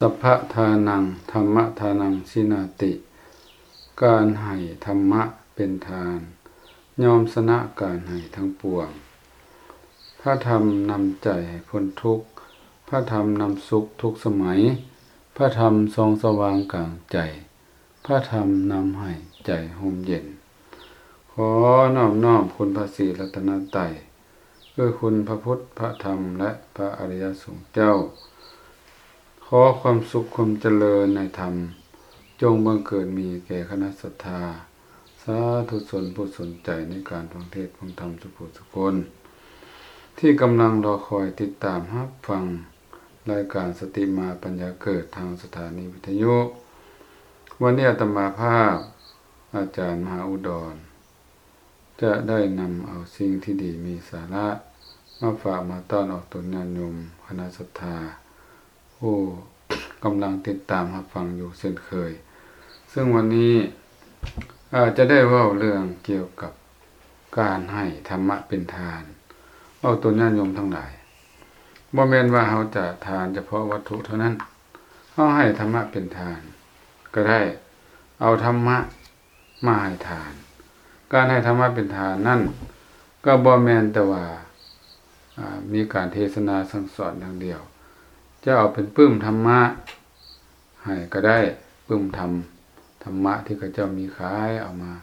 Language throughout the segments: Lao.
ສັບພະທານັງ ທຳມະທານັງ ຊິນາຕິ ການໃຫ້ທຳມະເປັນທານ ຍ່ອມຊະນະການໃຫ້ທັງປວງ. ພະທຳນຳໃຈໃຫ້ພົ້ນທຸກ, ພະທຳນຳສຸກທຸກສະໄໝ, ພະທຳສ່ອງສະຫວ່າງກາງໃຈ, ພະທຳນຳໃຫ້ໃຈຮົ່ມເຢັນ. ຂໍນອບນ້ອມຄຸນພະສີລັດຕະນະໄຕ ຄືຄຸນພະພຸດ ພະທຳ ແລະ ພະອະລິຍະສົງເຈົ້າ. ຂໍຄວາມສຸກຄວາມຈະເລີນໃນທຳ ຈົ່ງບັງເກີດມີແກ່ຄະນະສັດທາ ສາທຸຊົນຜູ້ສົນໃຈໃນການຟັງເທດຟັງທຳທຸກຜູ້ທຸກຄົນ ທີ່ກຳລັງລໍຄອຍຕິດຕາມຮັບຟັງລາຍການສະຕິມາປັນຍາເກີດທາງສະຖານີວິທະຍຸ. ວັນນີ້ອາດຕະມາພາບ ອາຈານມະຫາອຸດອນ ຈະໄດ້ນຳເອົາສິ່ງທີ່ດີມີສາລະມາຝາກມາຕ້ອນອອກຕົນຍາດໂຍມຄະນະສັດທາ ຜູ້ກຳລັງຕິດຕາມຮັບຟັງຢູ່ເຊັ່ນເຄີຍ. ເຊິ່ງວັນນີ້ ອາ ຈະໄດ້ເວົ້າເລື່ອງກ່ຽວກັບການໃຫ້ທຳມະເປັນທານ ອອກຕົນຍາດໂຍມທັງຫຼາຍ. ບໍ່ແມ່ນວ່າເຮົາຈະທານສະເພາະວັດຖຸເທົ່ານັ້ນ, ເຮົາໃຫ້ທຳມະເປັນທານກໍໄດ້, ເອົາທຳມະ ມາໃຫ້ທານ. ການໃຫ້ທຳມະເປັນທານນັ້ນ ກໍບໍ່ແມ່ນແຕ່ວ່າ ອາ ມີການເທສະນາສັ່ງສອນຢ່າງດຽວ, ຈະເອົາເປັນປຶ້ມທຳມະໃຫ້ກໍໄດ້, ປຶ້ມທຳ ທຳມະທີ່ເຂົາເຈົ້າມີຂາຍ ເອົາມາ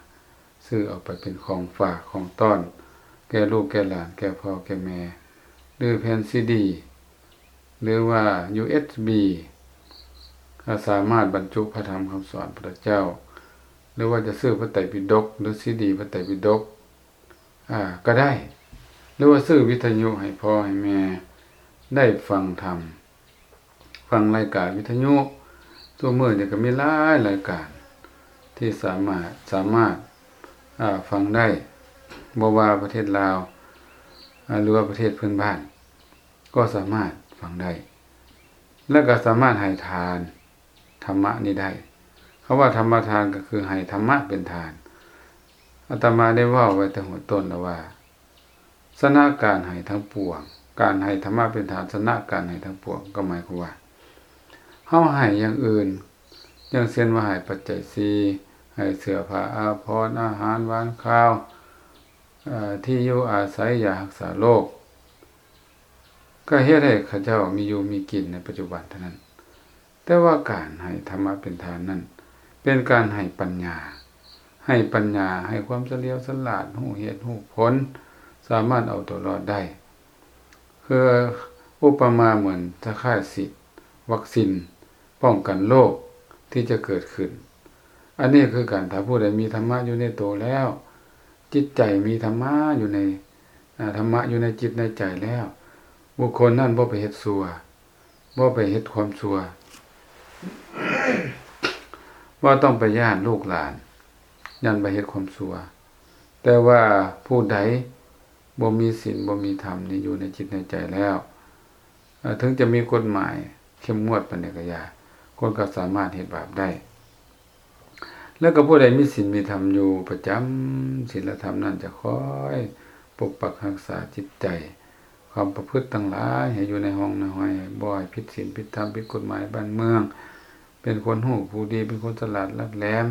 ຊື້ເອົາໄປເປັນຂອງຝາກຂອງຕ້ອນ ແກ່ລູກແກ່ຫຼານ ແກ່ພໍ່ແກ່ແມ່ ຫຼືແຜ່ນຊີດີ ຫຼືວ່າຢູເອັສບີ ກໍສາມາດບັນຈຸພະທຳຄຳສອນພະເຈົ້າ ຫຼືວ່າຈະຊື້ພະໄຕປິດົກ ຫຼືຊີດີພະໄຕປິດົກ ອາ ກໍໄດ້ ຫຼືວ່າຊື້ວິທະຍຸໃຫ້ພໍ່ໃຫ້ແມ່ໄດ້ຟັງທຳ ຟັງລາຍການວິທະຍຸ. ທຸກມື້ນີ້ກໍມີຫຼາຍລາຍການທີ່ສາມາດ ສາມາດ ອາ ຟັງໄດ້ ບໍ່ວ່າປະເທດລາວ ອາ ຫຼືວ່າປະເທດເພື່ອນບ້ານ ກໍສາມາດຟັງໄດ້ ແລະ ກໍສາມາດໃຫ້ທານທຳມະນີ້ໄດ້. ຄຳວ່າທຳມະທານກໍຄືໃຫ້ທຳມະເປັນທານ. ອາດຕະມາໄດ້ເວົ້າໄວ້ແຕ່ຫົວຕົ້ນແລ້ວວ່າ ຊະນະການໃຫ້ທັງປວງ, ການໃຫ້ທຳມະເປັນທານ ຊະນະການໃຫ້ທັງປວງ ກໍໝາຍຄວາມວ່າ ເຮົາໃຫ້ຢ່າງອື່ນ ຢ່າງເຊັ່ນວ່າໃຫ້ປັດໄຈສີ່, ໃຫ້ເສື້ອຜ້າອາພອນ, ອາຫານຫວານຄາວ, ເອີ່ ທີ່ຢູ່ອາໄສ, ຢາຮັກສາໂລກ ກໍເຮັດໃຫ້ເຂົາເຈົ້າມີຢູ່ມີກິນໃນປັດຈຸບັນເທົ່ານັ້ນ. ແຕ່ວ່າການໃຫ້ທຳມະເປັນທານນັ້ນ ເປັນການໃຫ້ປັນຍາ, ໃຫ້ປັນຍາ, ໃຫ້ຄວາມສະຫຼຽວສະຫຼາດ, ຮູ້ເຫດຮູ້ຜົນ, ສາມາດເອົາຕົວລອດໄດ້. ຄືອຸປະມາເໝືອນຄ້າຍໆຊິດວັກຊິນປ້ອງກັນໂລກທີ່ຈະເກີດຂຶ້ນ. ອັນນີ້ຄືກັນ, ຖ້າຜູ້ໃດມີທຳມະຢູ່ໃນໂຕແລ້ວ, ຈິດໃຈມີທຳມະຢູ່ໃນ ອາ ທຳມະຢູ່ໃນຈິດໃນໃຈແລ້ວ, ບຸກຄົນນັ້ນບໍ່ໄປເຮັດຊົ່ວ, ບໍ່ໄປເຮັດຄວາມຊົ່ວ, ບໍ່ຕ້ອງໄປຢ້ານລູກຫຼານ, ຢ້ານໄປເຮັດຄວາມຊົ່ວ. ແຕ່ວ່າຜູ້ໃດບໍ່ມີສິນ ບໍ່ມີທຳນີ້ຢູ່ໃນຈິດໃນໃຈແລ້ວ, ເອີ່ ເຖິງຈະມີກົດໝາຍເຂັ້ມງວດປານໃດກໍຢ່າ, ຄົນກໍສາມາດເຮັດບາບໄດ້. ແລ້ວກໍຜູ້ໃດມີສິນມີທຳຢູ່ປະຈຳ, ສິນລະທຳນັ້ນຈະຄອຍປົກປັກຮັກສາຈິດໃຈ, ຄວາມປະພຶດທັງຫຼາຍໃຫ້ຢູ່ໃນຮ່ອງໃນຮອຍ, ບໍ່ໃຫ້ຜິດສິນຜິດທຳ, ຜິດກົດໝາຍບ້ານເມືອງ, ເປັນຄົນຮູ້ຜູ້ດີ, ເປັນຄົນສະຫຼາດຫຼັກແຫຼມ,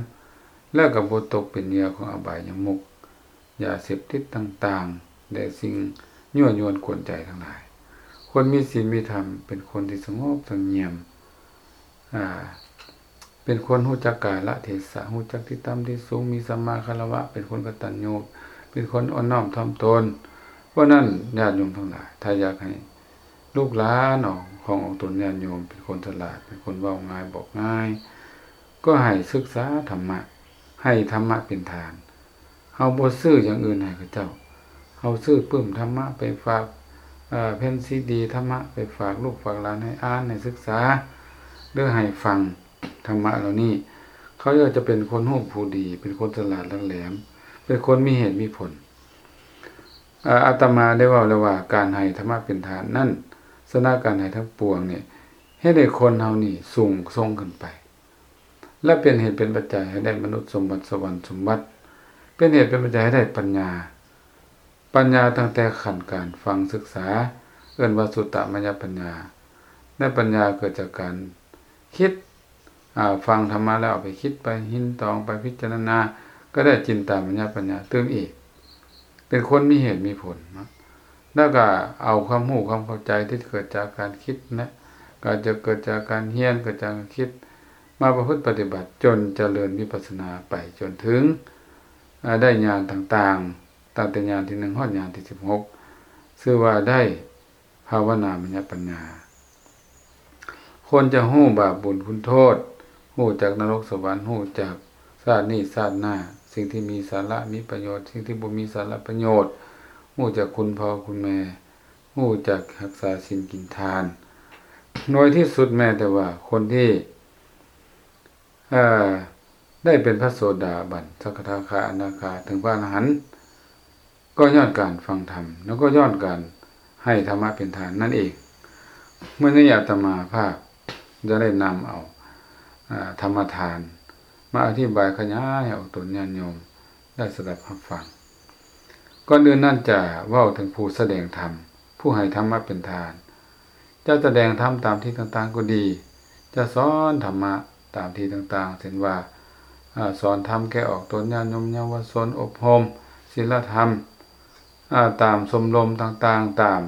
ແລ້ວກໍບໍ່ຕົກເປັນເຫຍື່ອຂອງອະບາຍຍະມຸກ, ຢາເສບຕິດຕ່າງໆ ແລະ ສິ່ງຍົວະຍວນກວນໃຈທັງຫຼາຍ. ຄົນມີສິນມີທຳເປັນຄົນທີ່ສະຫງົບສະຫງຽມ, ອາ ເປັນຄົນຮູ້ຈັກກາລະເທສະ, ຮູ້ຈັກທີ່ຕ່ຳທີ່ສູງ, ມີສຳມາຄາລະວະ, ເປັນຄົນກະຕັນຍູ, ເປັນຄົນອ່ອນນ້ອມຖ່ອມຕົນ. ເພາະນັ້ນ ຍາດໂຍມທັງຫຼາຍ, ຖ້າຢາກໃຫ້ລູກຫຼານຂອງອອກຕົນຍາດໂຍມເປັນຄົນສະຫຼາດ, ເປັນຄົນເວົ້າງ່າຍບອກງ່າຍ, ກໍໃຫ້ສຶກສາທຳມະ, ໃຫ້ທຳມະເປັນທານ. ເຮົາບໍ່ຊື້ຢ່າງອື່ນໃຫ້ເຂົາເຈົ້າ. ເຮົາຊື້ປຶ້ມທຳມະໄປຝາກ, ເອີ່ ແຜ່ນຊີດີທຳມະໄປຝາກລູກຝາກຫຼານໃຫ້ອ່ານ, ໃຫ້ສຶກສາ, ຫຼື ໃຫ້ຟັງທຳມະເຫຼົ່ານີ້. ເຂົາເຈົ້າຈະເປັນຄົນຮູ້ຜູ້ດີ, ເປັນຄົນສະຫຼາດຫຼັກແຫຼມ, ເປັນຄົນມີເຫດມີຜົນ. ອາ ອາດຕະມາໄດ້ເວົ້າແລ້ວວ່າ ການໃຫ້ທຳມະເປັນທານນັ້ນ, ຊະນະການໃຫ້ທັງປວງນີ້, ເຮັດໃຫ້ຄົນເຮົານີ້ສູງສົ່ງຂຶ້ນໄປ. ແລະ ເປັນເຫດເປັນປັດໄຈໃຫ້ໄດ້ມະນຸດສົມບັດ, ສະຫວັນສົມບັດ, ເປັນເຫດເປັນປັດໄຈໃຫ້ໄດ້ປັນຍາ. ປັນຍາຕັ້ງແຕ່ຂັ້ນການຟັງສຶກສາ ເອີ້ນວ່າສຸດຕະມະຍະປັນຍາ. ແລະ ປັນຍາເກີດຈາກການ ຄິດ ອາ ຟັງທຳມະແລ້ວເອົາໄປຄິດ ໄປຮິນຕອງ ໄປພິຈາລະນາ ກໍໄດ້ຈິນຕາມະຍະປັນຍາຕື່ມອີກ ເປັນຄົນມີເຫດມີຜົນເນາະ ແລ້ວກໍເອົາຄວາມຮູ້ຄວາມເຂົ້າໃຈທີ່ເກີດຈາກການຄິດນະ ກໍຈະເກີດຈາກການຮຽນ ເກີດຈາກການຄິດ ມາປະພຶດປະຕິບັດ ຈົນຈະເລີນວິປັດສະນາໄປຈົນເຖິງ ອາ ໄດ້ຍານຕ່າງໆ ຕັ້ງແຕ່ຍານທີໜຶ່ງຮອດຍານທີສິບຫົກ ຊື່ວ່າໄດ້ ພາວະນາມະຍະປັນຍາ ຄົນຈະຮູ້ບາບບຸນຄຸນໂທດ, ຮູ້ຈັກນະລົກສະຫວັນ, ຮູ້ຈັກຊາດນີ້ຊາດໜ້າ, ສິ່ງທີ່ມີສາລະມີປະໂຫຍດ, ສິ່ງທີ່ບໍ່ມີສາລະປະໂຫຍດ, ຮູ້ຈັກຄຸນພໍ່ຄຸນແມ່, ຮູ້ຈັກຮັກສາສິນກິນທານ. ໜ່ວຍທີ່ສຸດແມ້ແຕ່ວ່າຄົນທີ່ ເອີ ໄດ້ເປັນພະໂສດາບັນ, ສະກະທາຄາ, ອະນາຄາ, ເຖິງພະອະລະຫັນ, ກໍຍ້ອນການຟັງທຳ ແລ້ວກໍຍ້ອນການໃຫ້ທຳມະເປັນທານນັ້ນເອງ. ມື້ນີ້ອາດຕະມາພາບຈະໄດ້ນຳເອົາ ອາ ທຳມະທານ ມາອະທິບາຍຂະຫຍາຍໃຫ້ອອກຕົນຍາດໂຍມໄດ້ສະດັບຮັບຟັງ. ກ່ອນອື່ນນັ້ນຈະເວົ້າເຖິງຜູ້ສະແດງທຳ, ຜູ້ໃຫ້ທຳມະເປັນທານ. ຈະສະແດງທຳຕາມທີ່ຕ່າງໆກໍດີ, ຈະສອນທຳມະຕາມທີ່ຕ່າງໆ ເຊັ່ນວ່າ ອາ ສອນທຳແກ່ອອກຕົນຍາດໂຍມເຍົາວະຊົນ, ອົບຮົມສິນລະທຳ ອາ ຕາມຊົມລົມຕ່າງໆ, ຕາມ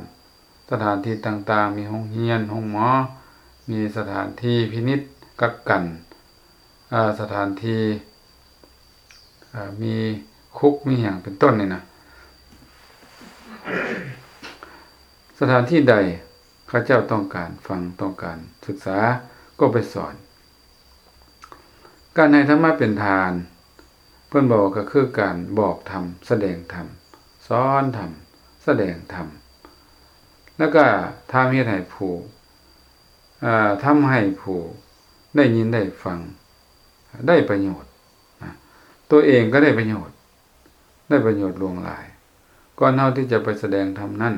ສະຖານທີ່ຕ່າງໆ, ມີໂຮງຮຽນ, ໂຮງໝໍ, ມີສະຖານທີ່ພິນິດກັກກັນ, ອາ ສະຖານທີ່ ອາ ມີຄຸກມີຫຍັງເປັນຕົ້ນນີ້ນະ. ສະຖານທີ່ໃດເຂົາເຈົ້າຕ້ອງການຟັງ, ຕ້ອງການສຶກສາ, ກໍໄປສອນ. ການໃຫ້ທຳມະເປັນທານ ເພິ່ນບອກວ່າ ກໍຄືການບອກທຳ, ສະແດງທຳ, ສອນທຳ, ສະແດງທຳ ແລ້ວກໍທຳເຮັດໃຫ້ຜູ້ ເອີ ທຳໃຫ້ຜູ້ໄດ້ຍິນໄດ້ຟັງໄດ້ປະໂຫຍດນະ, ຕົວເອງກໍໄດ້ປະໂຫຍດ, ໄດ້ປະໂຫຍດຫຼວງຫຼາຍ. ກ່ອນເຮົາທີ່ຈະໄປສະແດງທຳນັ້ນ,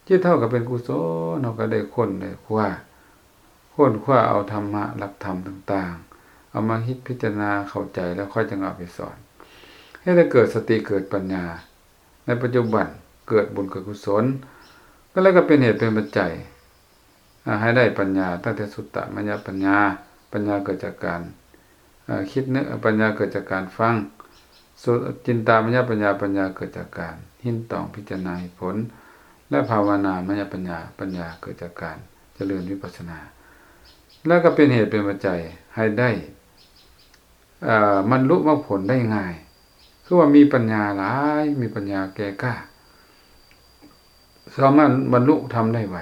ຈິດເຮົາກໍເປັນກຸສົນ, ເຮົາກໍໄດ້ຄົ້ນໄດ້ຄວ້າ, ຄົ້ນຄວ້າເອົາທຳມະ, ຫຼັກທຳຕ່າງໆ, ເອົາມາຄິດພິຈາລະນາເຂົ້າໃຈ ແລ້ວຄ່ອຍຈັ່ງເອົາໄປສອນ. ເຮັດໃຫ້ເກີດສະຕິເກີດປັນຍາ ໃນປັດຈຸບັນເກີດບຸນເກີດກຸສົນ ກໍແລ້ວກໍເປັນເຫດເປັນປັດໄຈ ອາ ໃຫ້ໄດ້ປັນຍາ ຕັ້ງແຕ່ສຸດຕະມະຍະປັນຍາ, ປັນຍາເກີດຈາກການ ອາ ຄິດນຶກ, ປັນຍາເກີດຈາກການຟັງ, ສຸ ຈິນຕາມະຍະປັນຍາ, ປັນຍາເກີດຈາກການຮິນຕອງພິຈາລະນາເຫດຜົນ ແລະ ພາວະນາມະຍະປັນຍາ, ປັນຍາເກີດຈາກການຈະເລີນວິປັດສະນາ ແລ້ວກໍເປັນເຫດເປັນປັດໄຈໃຫ້ໄດ້ ເອີ ບັນລຸມັກຜົນໄດ້ງ່າຍ, ຄືວ່າມີປັນຍາຫຼາຍ, ມີປັນຍາແກ່ກ້າ, ສາມາດບັນລຸທຳໄດ້ໄວ.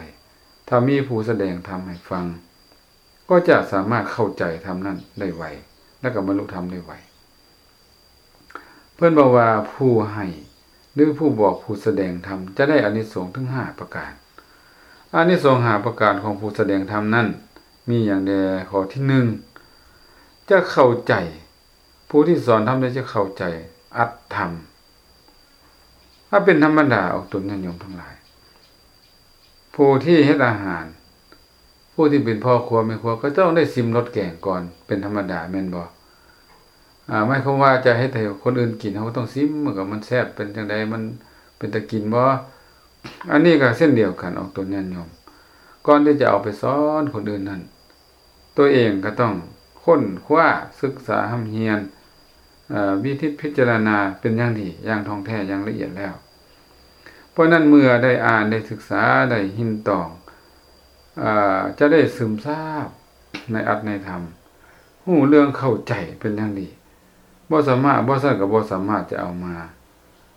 ຖ້າມີຜູ້ສະແດງທຳໃຫ້ຟັງ, ກໍຈະສາມາດເຂົ້າໃຈທຳນັ້ນໄດ້ໄວ ແລະ ກໍບັນລຸທຳໄດ້ໄວ. ເພິ່ນບອກວ່າ ຜູ້ໃຫ້ ຫຼື ຜູ້ບອກ ຜູ້ສະແດງທຳ ຈະໄດ້ອານິສົງເຖິງຫ້າປະການ. ອານິສົງຫ້າປະການຂອງຜູ້ສະແດງທຳນັ້ນ ມີຫຍັງແດ່? ຂໍ້ທີໜຶ່ງ ຈະເຂົ້າໃຈ, ຜູ້ທີ່ສອນທຳໄດ້ຈະເຂົ້າໃຈອັດທຳ. ຖ້າເປັນທຳມະດາອອກຕົນຍາດໂຍມທັງຫຼາຍ, ຜູ້ທີ່ເຮັດອາຫານ, ຜູ້ທີ່ເປັນພໍ່ຄົວແມ່ຄົວ ກໍຕ້ອງໄດ້ຊິມລົດແກງກ່ອນ ເປັນທຳມະດາແມ່ນບໍ່? ອາ ໝາຍຄວາມວ່າຈະເຮັດໃຫ້ຄົນອື່ນກິນ ເຮົາກໍຕ້ອງຊິມ ມັນກໍ ມັນແຊບເປັນຈັ່ງໃດ ມັນເປັນຕາກິນບໍ່? ອັນນີ້ກໍເຊັ່ນດຽວກັນ ອອກຕົນຍາດໂຍມ ກ່ອນທີ່ຈະເອົາໄປສອນຄົນອື່ນນັ້ນ ຕົວເອງກໍຕ້ອງຄົ້ນຄວ້າ, ສຶກສາ, ຮ່ຳຮຽນ, ເອີ ວິທິດພິຈາລະນາເປັນຢ່າງດີ, ຢ່າງທ່ອງແທ້, ຢ່າງລະອຽດແລ້ວ. ເພາະນັ້ນເມື່ອໄດ້ອ່ານ, ໄດ້ສຶກສາ, ໄດ້ຮິນຕອງ, ເອີ ຈະໄດ້ຊຶມຊາບໃນອັດໃນທຳ, ຮູ້ເລື່ອງເຂົ້າໃຈເປັນຢ່າງດີ. ບໍ່ສາມາດ, ບໍ່ຊັ້ນກໍບໍ່ສາມາດຈະເອົາມາ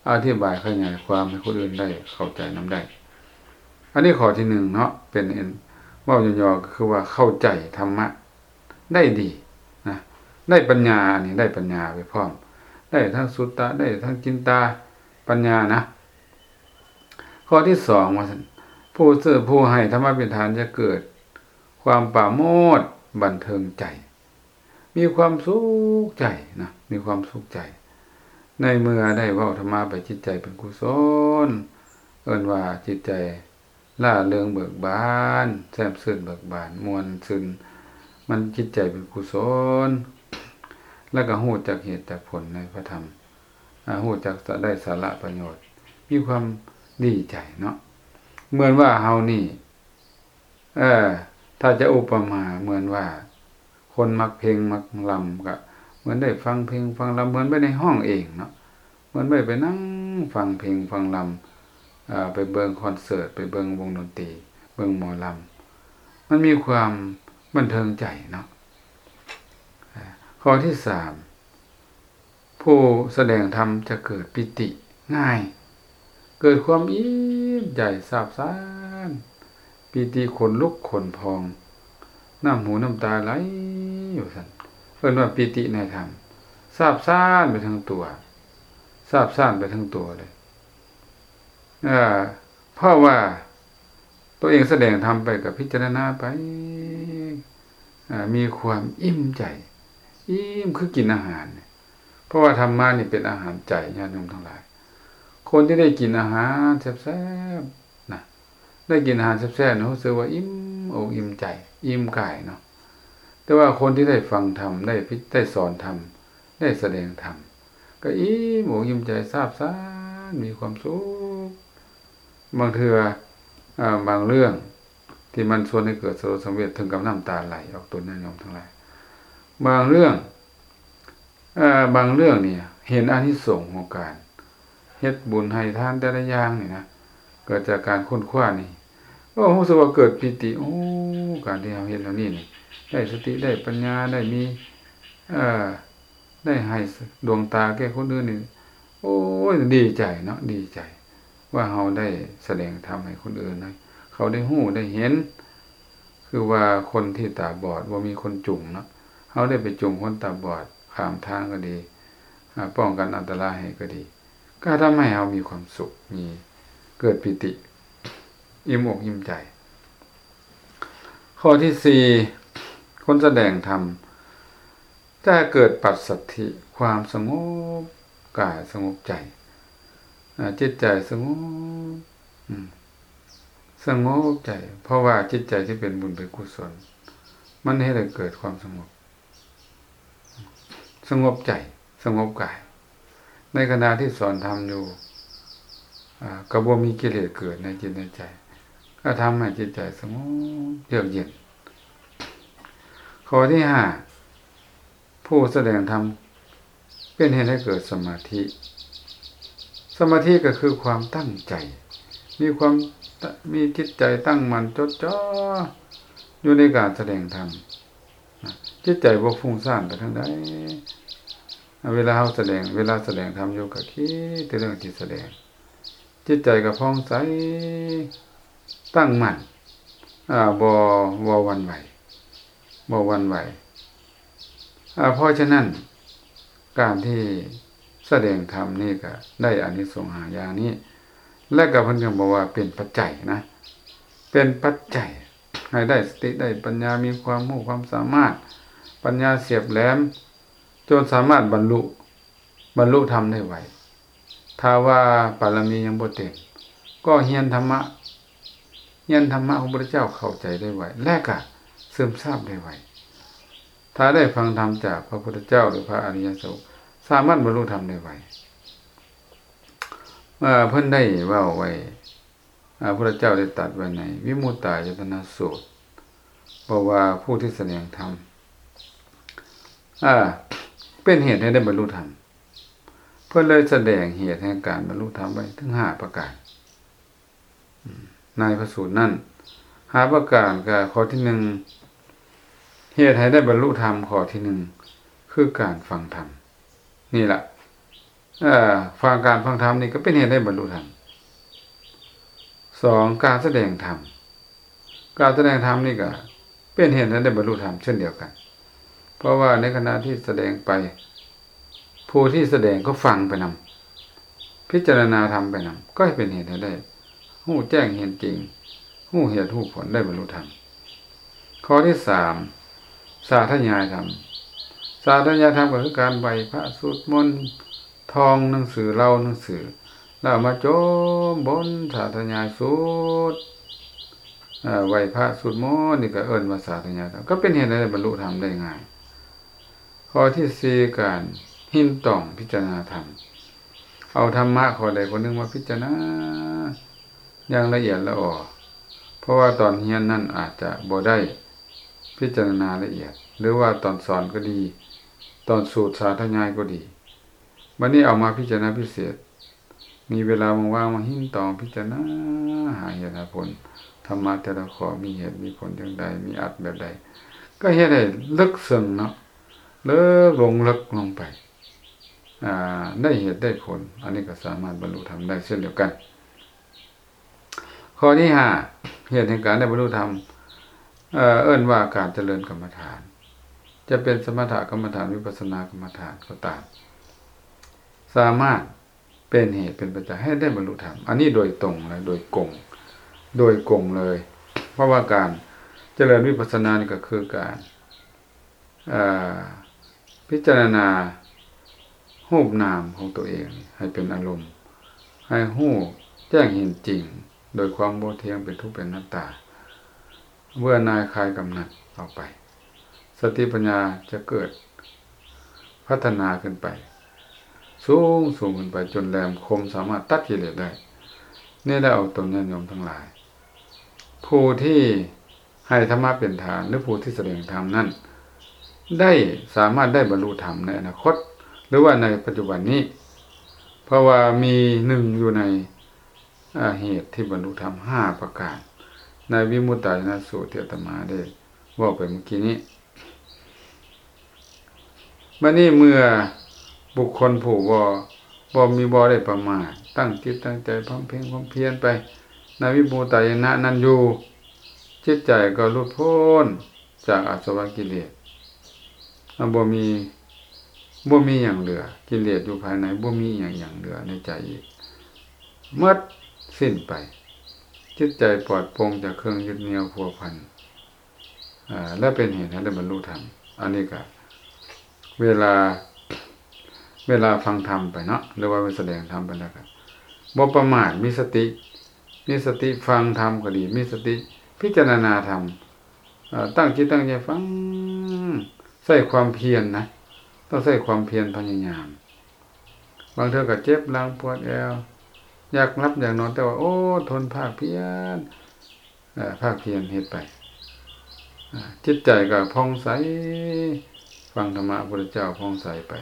ອະທິບາຍຂະຫຍາຍຄວາມໃຫ້ຄົນອື່ນໄດ້ເຂົ້າໃຈນຳໄດ້. ອັນນີ້ຂໍ້ທີໜຶ່ງເນາະ, ເປັນ ເວົ້າຫຍໍ້ໆ ກໍຄືວ່າເຂົ້າໃຈທຳມະໄດ້ດີນະ, ໄດ້ປັນຍາ, ອັນນີ້ໄດ້ປັນຍາໄປພ້ອມ, ໄດ້ທັງສຸດຕະ, ໄດ້ທັງຈິນຕາ, ປັນຍານະ. ຂໍ້ທີສອງ ວ່າຊັ້ນ, ຜູ້ເຊື່ອ, ຜູ້ໃຫ້ທຳມະເປັນທານຈະເກີດຄວາມປາໂມດບັນເທີງໃຈ. ມີຄວາມສຸກໃຈນະ, ມີຄວາມສຸກໃຈ ໃນເມື່ອໄດ້ເວົ້າທຳມະໄປ, ຈິດໃຈເປັນກຸສົນ, ເອີ້ນວ່າຈິດໃຈລ່າເລິງເບີກບານ, ແຈ່ມຊື່ນເບີກບານ, ມ່ວນຊື່ນ, ມັນຈິດໃຈເປັນກຸສົນ ແລ້ວກໍຮູ້ຈັກເຫດຈັກຜົນໃນພະທຳ, ອາ, ຮູ້ຈັກຈະໄດ້ສາລະປະໂຫຍດ, ມີຄວາມດີໃຈເນາະ. ເໝືອນວ່າເຮົານີ້ ເອີ ຖ້າຈະອຸປະມາເໝືອນວ່າ ຄົນມັກເພງມັກລຳ ກະເໝືອນໄດ້ຟັງເພງຟັງລຳ ເໝືອນໄປໄດ້ຮ້ອງເອງເນາະ ເໝືອນໄປ ໄປນັ່ງຟັງເພງຟັງລຳ ເອີ ໄປເບິ່ງຄອນເສີດ ໄປເບິ່ງວົງດົນຕີ ເບິ່ງໝໍລຳ ມັນມີຄວາມບັນເທີງໃຈເນາະ. ເອີ ຂໍ້ທີສາມ ຜູ້ສະແດງທຳຈະເກີດປີຕິງ່າຍ ເກີດຄວາມອີ່ມໃຈຊາບຊານ ປີຕິຂົນລຸກຂົນພອງ ນ້ຳຫູນ້ຳຕາໄຫຼວ່າຊັ້ນ ເອີ້ນວ່າປີຕິໃນທຳ ຊາບຊານໄປທັງຕົວ ຊາບຊານໄປທັງຕົວເລີຍ ເອີ ເພາະວ່າຕົວເອງສະແດງທຳໄປ ກໍພິຈາລະນາໄປ ເອີ ມີຄວາມອີ່ມໃຈ ອີ່ມຄືກິນອາຫານ ເພາະວ່າທຳມະນີ້ເປັນອາຫານໃຈ ຍາດໂຍມທັງຫຼາຍ ຄົນທີ່ໄດ້ກິນອາຫານແຊບໆນະ ໄດ້ກິນອາຫານແຊບໆນະ ຮູ້ສຶກວ່າອີ່ມອົກອີ່ມໃຈ ອີ່ມກາຍເນາະ ແຕ່ວ່າຄົນທີ່ໄດ້ຟັງທຳ ໄດ້ພິ ໄດ້ສອນທຳ ໄດ້ສະແດງທຳ ກໍອີ່ມອົກອີ່ມໃຈ ຊາບຊານ ມີຄວາມສຸກ ບາງເທື່ອ ເອີ ບາງເລື່ອງທີ່ມັນຊວນໃຫ້ເກີດສະຫຼົດສັງເວດ ເຖິງກັບນ້ຳຕາໄຫຼອອກຕົນ ຍາດໂຍມທັງຫຼາຍ ບາງເລື່ອງ ເອີ ບາງເລື່ອງນີ້ເຫັນອານິສົງຂອງການເຮັດບຸນໃຫ້ທານແຕ່ລະຢ່າງນີ້ນະ ເກີດຈາກການຄົ້ນຄວ້ານີ້ ໂອ້ ຮູ້ສຶກວ່າເກີດປີຕິ ໂອ້ ການທີ່ເຮົາເຮັດແນວນີ້ນີ້ ໄດ້ສະຕິ ໄດ້ປັນຍາ ໄດ້ມີ ເອີ ໄດ້ໃຫ້ດວງຕາແກ່ຄົນອື່ນນີ້ ໂອ້ຍ ດີໃຈເນາະ ດີໃຈ ວ່າເຮົາໄດ້ສະແດງທຳໃຫ້ຄົນອື່ນ ໃຫ້ເຂົາໄດ້ຮູ້ໄດ້ເຫັນ ຄືວ່າຄົນທີ່ຕາບອດ ບໍ່ມີຄົນຈູງເນາະ ເຮົາໄດ້ໄປຈູງຄົນຕາບອດຂ້າມທາງກໍດີ ອາ ປ້ອງກັນອັນຕະລາຍໃຫ້ກໍດີ ກໍທຳໃຫ້ເຮົາມີຄວາມສຸກ ມີ ເກີດປີຕິ ອີ່ມອົກອີ່ມໃຈ. ຂໍ້ທີສີ່ ຄົນສະແດງທຳຈະເກີດປັດສັດຖິ ຄວາມສະຫງົບກາຍ ສະຫງົບໃຈ ອາ ຈິດໃຈສະຫງົບ ອາ ສະຫງົບໃຈ ເພາະວ່າຈິດໃຈທີ່ເປັນບຸນເປັນກຸສົນ ມັນເຮັດໃຫ້ເກີດຄວາມສະຫງົບ ສະຫງົບໃຈ ສະຫງົບກາຍ ໃນຂະນະທີ່ສອນທຳຢູ່ ອາ ກໍບໍ່ມີກິເລດເກີດໃນຈິດໃນໃຈ ກໍທຳໃຫ້ຈິດໃຈສະຫງົບເຢືອກເຢັນ. ຂໍ້ທີຫ້າ ຜູ້ສະແດງທຳເປັນເຫດໃຫ້ເກີດສະມາທິ ສະມາທິກໍຄືຄວາມຕັ້ງໃຈ ມີຄວາມ ມີຈິດໃຈຕັ້ງໝັ້ນຈົດຈ່ອຢູ່ໃນການສະແດງທຳ ນະ ຈິດໃຈບໍ່ຟຸ້ງສ້ານໄປທາງໃດ ເວລາເຮົາສະແດງ ເວລາສະແດງທຳຢູ່ ກໍຄິດແຕ່ເລື່ອງທີ່ສະແດງ ຈິດໃຈກໍຜ່ອງໃສ ຕັ້ງໝັ້ນ ອາ ບໍ່ ບໍ່ຫວັ່ນໄຫວ ບໍ່ຫວັ່ນໄຫວ ອາ ເພາະສະນັ້ນ ການທີ່ສະແດງທຳນີ້ກໍໄດ້ອານິສົງຫ້າຢ່າງນີ້ ແລະກໍເພິ່ນກໍບອກວ່າເປັນປັດໄຈນະ ເປັນປັດໄຈໃຫ້ໄດ້ສະຕິ ໄດ້ປັນຍາ ມີຄວາມຮູ້ຄວາມສາມາດ ປັນຍາສຽບແຫຼມ ຈົນສາມາດບັນລຸ ບັນລຸທຳໄດ້ໄວ. ຖ້າວ່າບາລະມີຍັງບໍ່ເຕັມ ກໍຮຽນທຳມະ ຮຽນທຳມະຂອງພະພຸດທະເຈົ້າເຂົ້າໃຈໄດ້ໄວ ແລະກະຊຶມຊາບໄດ້ໄວ. ຖ້າໄດ້ຟັງທຳຈາກພະພຸດທະເຈົ້າ ຫຼື ພະອະລິຍະສາວົກ ສາມາດບັນລຸທຳໄດ້ໄວ. ເອີ ເພິ່ນໄດ້ເວົ້າໄວ້ ອາ ພະພຸດທະເຈົ້າໄດ້ຕັດໄວ້ໃນວິມຸດຕາຍະຕະນະສູດ ບອກວ່າຜູ້ທີ່ສະແດງທຳ ອາ ເປັນເຫດໃຫ້ໄດ້ບັນລຸທຳ ເພິ່ນເລີຍສະແດງເຫດແຫ່ງການບັນລຸທຳໄວ້ເຖິງຫ້າປະການ ອາ ໃນພະສູດນັ້ນ ຫ້າປະການ ກໍຂໍ້ທີໜຶ່ງ ເຫດໃຫ້ໄດ້ບັນລຸທຳ ຂໍ້ທີໜຶ່ງ ຄືການຟັງທຳ ນີ້ລະ ເອີ ຟັງ ການຟັງທຳນີ້ກໍເປັນເຫດໃຫ້ບັນລຸທຳ. ສອງ ການສະແດງທຳ ການສະແດງທຳນີ້ກໍເປັນເຫດໃຫ້ໄດ້ບັນລຸທຳເຊັ່ນດຽວກັນ ເພາະວ່າໃນຂະນະທີ່ສະແດງໄປ ຜູ້ທີ່ສະແດງກໍຟັງໄປນຳ ພິຈາລະນາທຳໄປນຳ ກໍເປັນເຫດໃຫ້ໄດ້ຮູ້ແຈ້ງເຫັນຈິງ ຮູ້ເຫດຮູ້ຜົນ ໄດ້ບັນລຸທຳ. ຂໍ້ທີສາມ ສາທະຍາຍທຳ ສາທະຍາຍທຳກໍຄືການໄຫວ້ພະ ສວດມົນ ທ່ອງໜັງສື ເລົ່າໜັງສື ແລ້ວເອົາມາຈົ່ມບົນ ສາທະຍາຍສູດ ເອີ ໄຫວ້ພະ ສວດມົນ ນີ້ກໍເອີ້ນວ່າສາທະຍາຍທຳ ກໍເປັນເຫດໃຫ້ໄດ້ບັນລຸທຳໄດ້ງ່າຍ. ຂໍ້ທີສີ່ ການຮິນຕອງພິຈາລະນາທຳ ເອົາທຳມະຂໍ້ໃດຂໍ້ໜຶ່ງມາພິຈາລະນາຢ່າງລະອຽດລະອໍ ເພາະວ່າຕອນຮຽນນັ້ນອາດຈະບໍ່ໄດ້ພິຈາລະນາລະອຽດ ຫຼືວ່າຕອນສອນກໍດີ, ຕອນສູດສາທະຍາຍກໍດີ, ບັດນີ້ເອົາມາພິຈາລະນາພິເສດ, ມີເວລາວ່າງໆມາຮິນຕອງພິຈາລະນາຫາເຫດຫາຜົນ, ທຳມະແຕ່ລະຂໍ້ມີເຫດມີຜົນຈັ່ງໃດ, ມີອັດແບບໃດ, ກໍເຮັດໃຫ້ເລິກເຊິ່ງເນາະ, ເລິກລົງເລິກລົງໄປ, ອາ ໄດ້ເຫດໄດ້ຜົນ, ອັນນີ້ກໍສາມາດບັນລຸທຳໄດ້ເຊັ່ນດຽວກັນ. ຂໍ້ທີຫ້າ ເຫດແຫ່ງການໄດ້ບັນລຸທຳ ເອີ ເອີ້ນວ່າການຈະເລີນກຳມະຖານ, ຈະເປັນສະມະຖະກຳມະຖານ, ວິປັດສະນາກຳມະຖານກໍຕາມ, ສາມາດເປັນເຫດເປັນປັດໄຈໃຫ້ໄດ້ບັນລຸທຳ, ອັນນີ້ໂດຍຕົງເລີຍ, ໂດຍກົງ, ໂດຍກົງເລີຍ, ເພາະວ່າການຈະເລີນວິປັດສະນານີ້ກໍຄືການ ເອີ ພິຈາລະນາຮູບນາມຂອງຕົວເອງໃຫ້ເປັນອາລົມ, ໃຫ້ຮູ້ແຈ້ງເຫັນຈິງໂດຍຄວາມບໍ່ທ່ຽງ, ເປັນທຸກ, ເປັນອະນັດຕາ, ເບື່ອໜ່າຍ, ຄາຍກຳໜັດອອກໄປ, ສະຕິປັນຍາຈະເກີດພັດທະນາຂຶ້ນໄປ, ສູງໆຂຶ້ນໄປຈົນແຫຼມຄົມ, ສາມາດຕັດກິເລດໄດ້. ນີ້ແຫຼະ ອອກຕົນຍາດໂຍມທັງຫຼາຍ, ຜູ້ທີ່ ໃຫ້ທຳມະເປັນຖານ ຫຼື ຜູ້ທີ່ສະແດງທຳນັ້ນ ໄດ້ສາມາດໄດ້ບັນລຸທຳໃນອະນາຄົດ ຫຼືວ່າໃນປັດຈຸບັນນີ້, ເພາະວ່າມີໜຶ່ງຢູ່ໃນ ອາ ເຫດທີ່ບັນລຸທຳຫ້າປະການ ໃນວິມຸດຕາຍະນະສູດທີ່ອາດຕະມາໄດ້ເວົ້າໄປເມື່ອກີ້ນີ້. ບັດນີ້ເມື່ອບຸກຄົນຜູ້ບໍ່ ບໍ່ມີ ບໍ່ໄດ້ປະໝາດ, ຕັ້ງຈິດຕັ້ງໃຈບຳເພັງບຳພຽນໄປໃນວິມຸດຕາຍະນະນັ້ນຢູ່, ຈິດໃຈກໍຫຼຸດພົ້ນຈາກອາສະວະກິເລດ, ບໍ່ມີ ບໍ່ມີຫຍັງເຫຼືອ, ກິເລດຢູ່ພາຍໃນບໍ່ມີຫຍັງ ຫຍັງເຫຼືອໃນໃຈອີກ, ໝົດສິ້ນໄປ, ຈິດໃຈປອດໂປ່ງຈາກເຄື່ອງຍຶດໜ່ຽວພົວພັນ. ອາ ແລະ ເປັນເຫດໃຫ້ໄດ້ບັນລຸທຳ. ອັນນີ້ກະເວລາ ເວລາຟັງທຳໄປເນາະ ຫຼືວ່າເວລາສະແດງທຳໄປແລ້ວກະບໍ່ປະໝາດ, ມີສະຕິ ມີສະຕິຟັງທຳກໍດີ, ມີສະຕິພິຈາລະນາທຳ, ເອີ ຕັ້ງຈິດຕັ້ງໃຈຟັງ, ໃຊ້ຄວາມພຽນນະ, ຕ້ອງໃຊ້ຄວາມພຽນພະຍາຍາມ. ບາງເທື່ອກໍເຈັບຫຼັງປວດແອວ, ຢາກຫຼັບຢາກນອນ, ແຕ່ວ່າ ໂອ້ ທົນພາກພຽນ ເອີ ພາກພຽນເຮັດໄປ, ອາ ຈິດໃຈກໍຜ່ອງໃສ, ຟັງທຳມະພະພຸດທະເຈົ້າຜ່ອງໃສໄປ,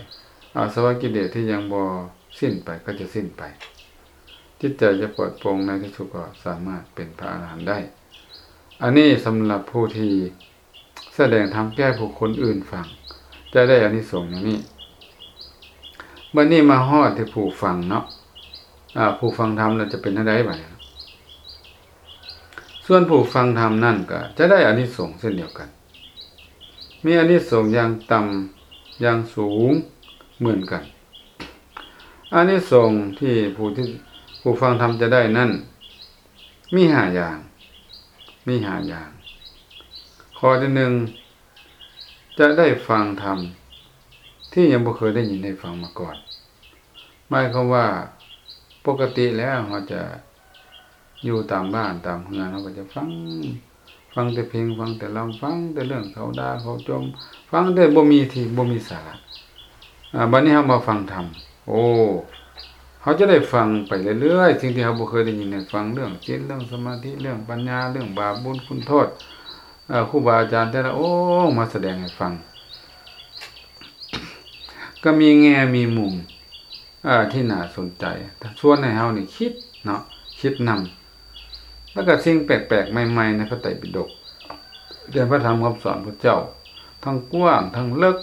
ອາສະວະກິເລດທີ່ຍັງບໍ່ສິ້ນໄປກໍຈະສິ້ນໄປ, ຈິດໃຈຈະປອດໂປ່ງ, ໃນທີ່ສຸດກໍສາມາດເປັນພະອະລະຫັນໄດ້. ອັນນີ້ສຳລັບຜູ້ທີ່ ສະແດງທຳແກ່ຜູ້ຄົນອື່ນຟັງ ຈະໄດ້ອານິສົງຢ່າງນີ້. ບັດນີ້ມາຮອດທີ່ຜູ້ຟັງເນາະ, ອາ ຜູ້ຟັງທຳລະຈະເປັນແນວໃດບາດນີ້? ສ່ວນຜູ້ຟັງທຳນັ້ນກໍຈະໄດ້ອານິສົງເຊັ່ນດຽວກັນ, ມີອານິສົງຢ່າງຕ່ຳ ຢ່າງສູງເໝືອນກັນ. ອານິສົງທີ່ຜູ້ທີ່ ຜູ້ຟັງທຳຈະໄດ້ນັ້ນ ມີຫ້າຢ່າງ, ມີຫ້າຢ່າງ. ຂໍ້ທີໜຶ່ງ ຈະໄດ້ຟັງທຳທີ່ຍັງບໍ່ເຄີຍໄດ້ຍິນໄດ້ຟັງມາກ່ອນ. ໝາຍຄວາມວ່າ ປົກກະຕິແລ້ວເຮົາຈະຢູ່ຕາມບ້ານຕາມເຮືອນ, ເຮົາກໍຈະຟັງ ຟັງແຕ່ເພງ, ຟັງແຕ່ລຳ, ຟັງແຕ່ເລື່ອງເຂົາດ່າເຂົາຈົ່ມ, ຟັງແຕ່ບໍ່ມີທີ່ ບໍ່ມີສາລະ. ອາ ບັດນີ້ເຮົາມາຟັງທຳ, ໂອ້ ເຮົາຈະໄດ້ຟັງໄປເລື້ອຍໆ ສິ່ງທີ່ເຮົາບໍ່ເຄີຍໄດ້ຍິນໄດ້ຟັງ, ເລື່ອງສິນ, ເລື່ອງສະມາທິ, ເລື່ອງປັນຍາ, ເລື່ອງບາບບຸນຄຸນໂທດ, ເອີ ຄູບາອາຈານແຕ່ລະອົງມາສະແດງໃຫ້ຟັງ, ກໍມີແງ່ມີມຸມ ເອີ ທີ່ໜ້າສົນໃຈ, ຊວນໃຫ້ເຮົານີ້ຄິດເນາະ, ຄິດນຳ. ແລ້ວກໍສິ່ງແປກໆໃໝ່ໆໃນພະໄຕປິດົກ ເລື່ອງພະທຳຄຳສອນພະເຈົ້າ, ທັງກວ້າງ, ທັງເລິກ,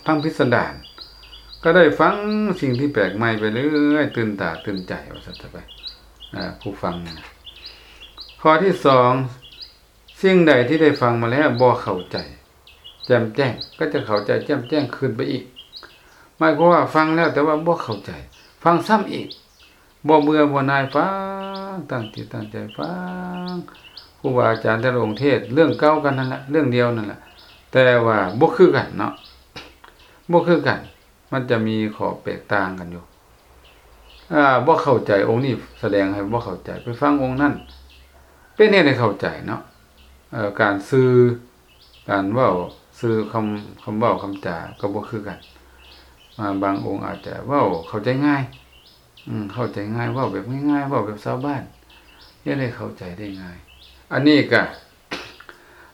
ທັງພິສະດານ, ກໍໄດ້ຟັງສິ່ງທີ່ແປກໃໝ່ໄປເລື້ອຍ, ຕື່ນຕາຕື່ນໃຈວ່າຊັ້ນຊະໄປ, ເອີ ຜູ້ຟັງນີ້ນະ. ຂໍ້ທີສອງ ສິ່ງໃດທີ່ໄດ້ຟັງມາແລ້ວບໍ່ເຂົ້າໃຈແຈ່ມແຈ້ງ ກໍຈະເຂົ້າໃຈແຈ່ມແຈ້ງຂຶ້ນໄປອີກ. ໝາຍຄວາມວ່າຟັງແລ້ວແຕ່ວ່າບໍ່ເຂົ້າໃຈ, ຟັງຊ້ຳອີກ, ບໍ່ເບື່ອບໍ່ໜ່າຍ, ຟັງ, ຕັ້ງຈິດຕັ້ງໃຈຟັງ. ຄູບາອາຈານແຕ່ລະອົງເທດເລື່ອງເກົ່າກັນນັ້ນລະ, ເລື່ອງດຽວນັ້ນລະ, ແຕ່ວ່າບໍ່ຄືກັນເນາະ, ບໍ່ຄືກັນ. ມັນຈະມີຂໍ້ແຕກຕ່າງກັນຢູ່. ອາ ບໍ່ເຂົ້າໃຈ, ອົງນີ້ສະແດງໃຫ້ບໍ່ເຂົ້າໃຈ, ໄປຟັງອົງນັ້ນ ເປັນເຫດໃຫ້ເຂົ້າໃຈເນາະ. ເອີ ການສື່ ການເວົ້າ, ສື່ຄຳ, ຄຳເວົ້າຄຳຈາກໍບໍ່ຄືກັນ. ອາ ບາງອົງອາດຈະເວົ້າເຂົ້າໃຈງ່າຍ, ອືມ ເຂົ້າໃຈງ່າຍ, ເວົ້າແບບງ່າຍໆ, ເວົ້າແບບຊາວບ້ານ, ເຮັດໃຫ້ເຂົ້າໃຈໄດ້ງ່າຍ. ອັນນີ້ກະ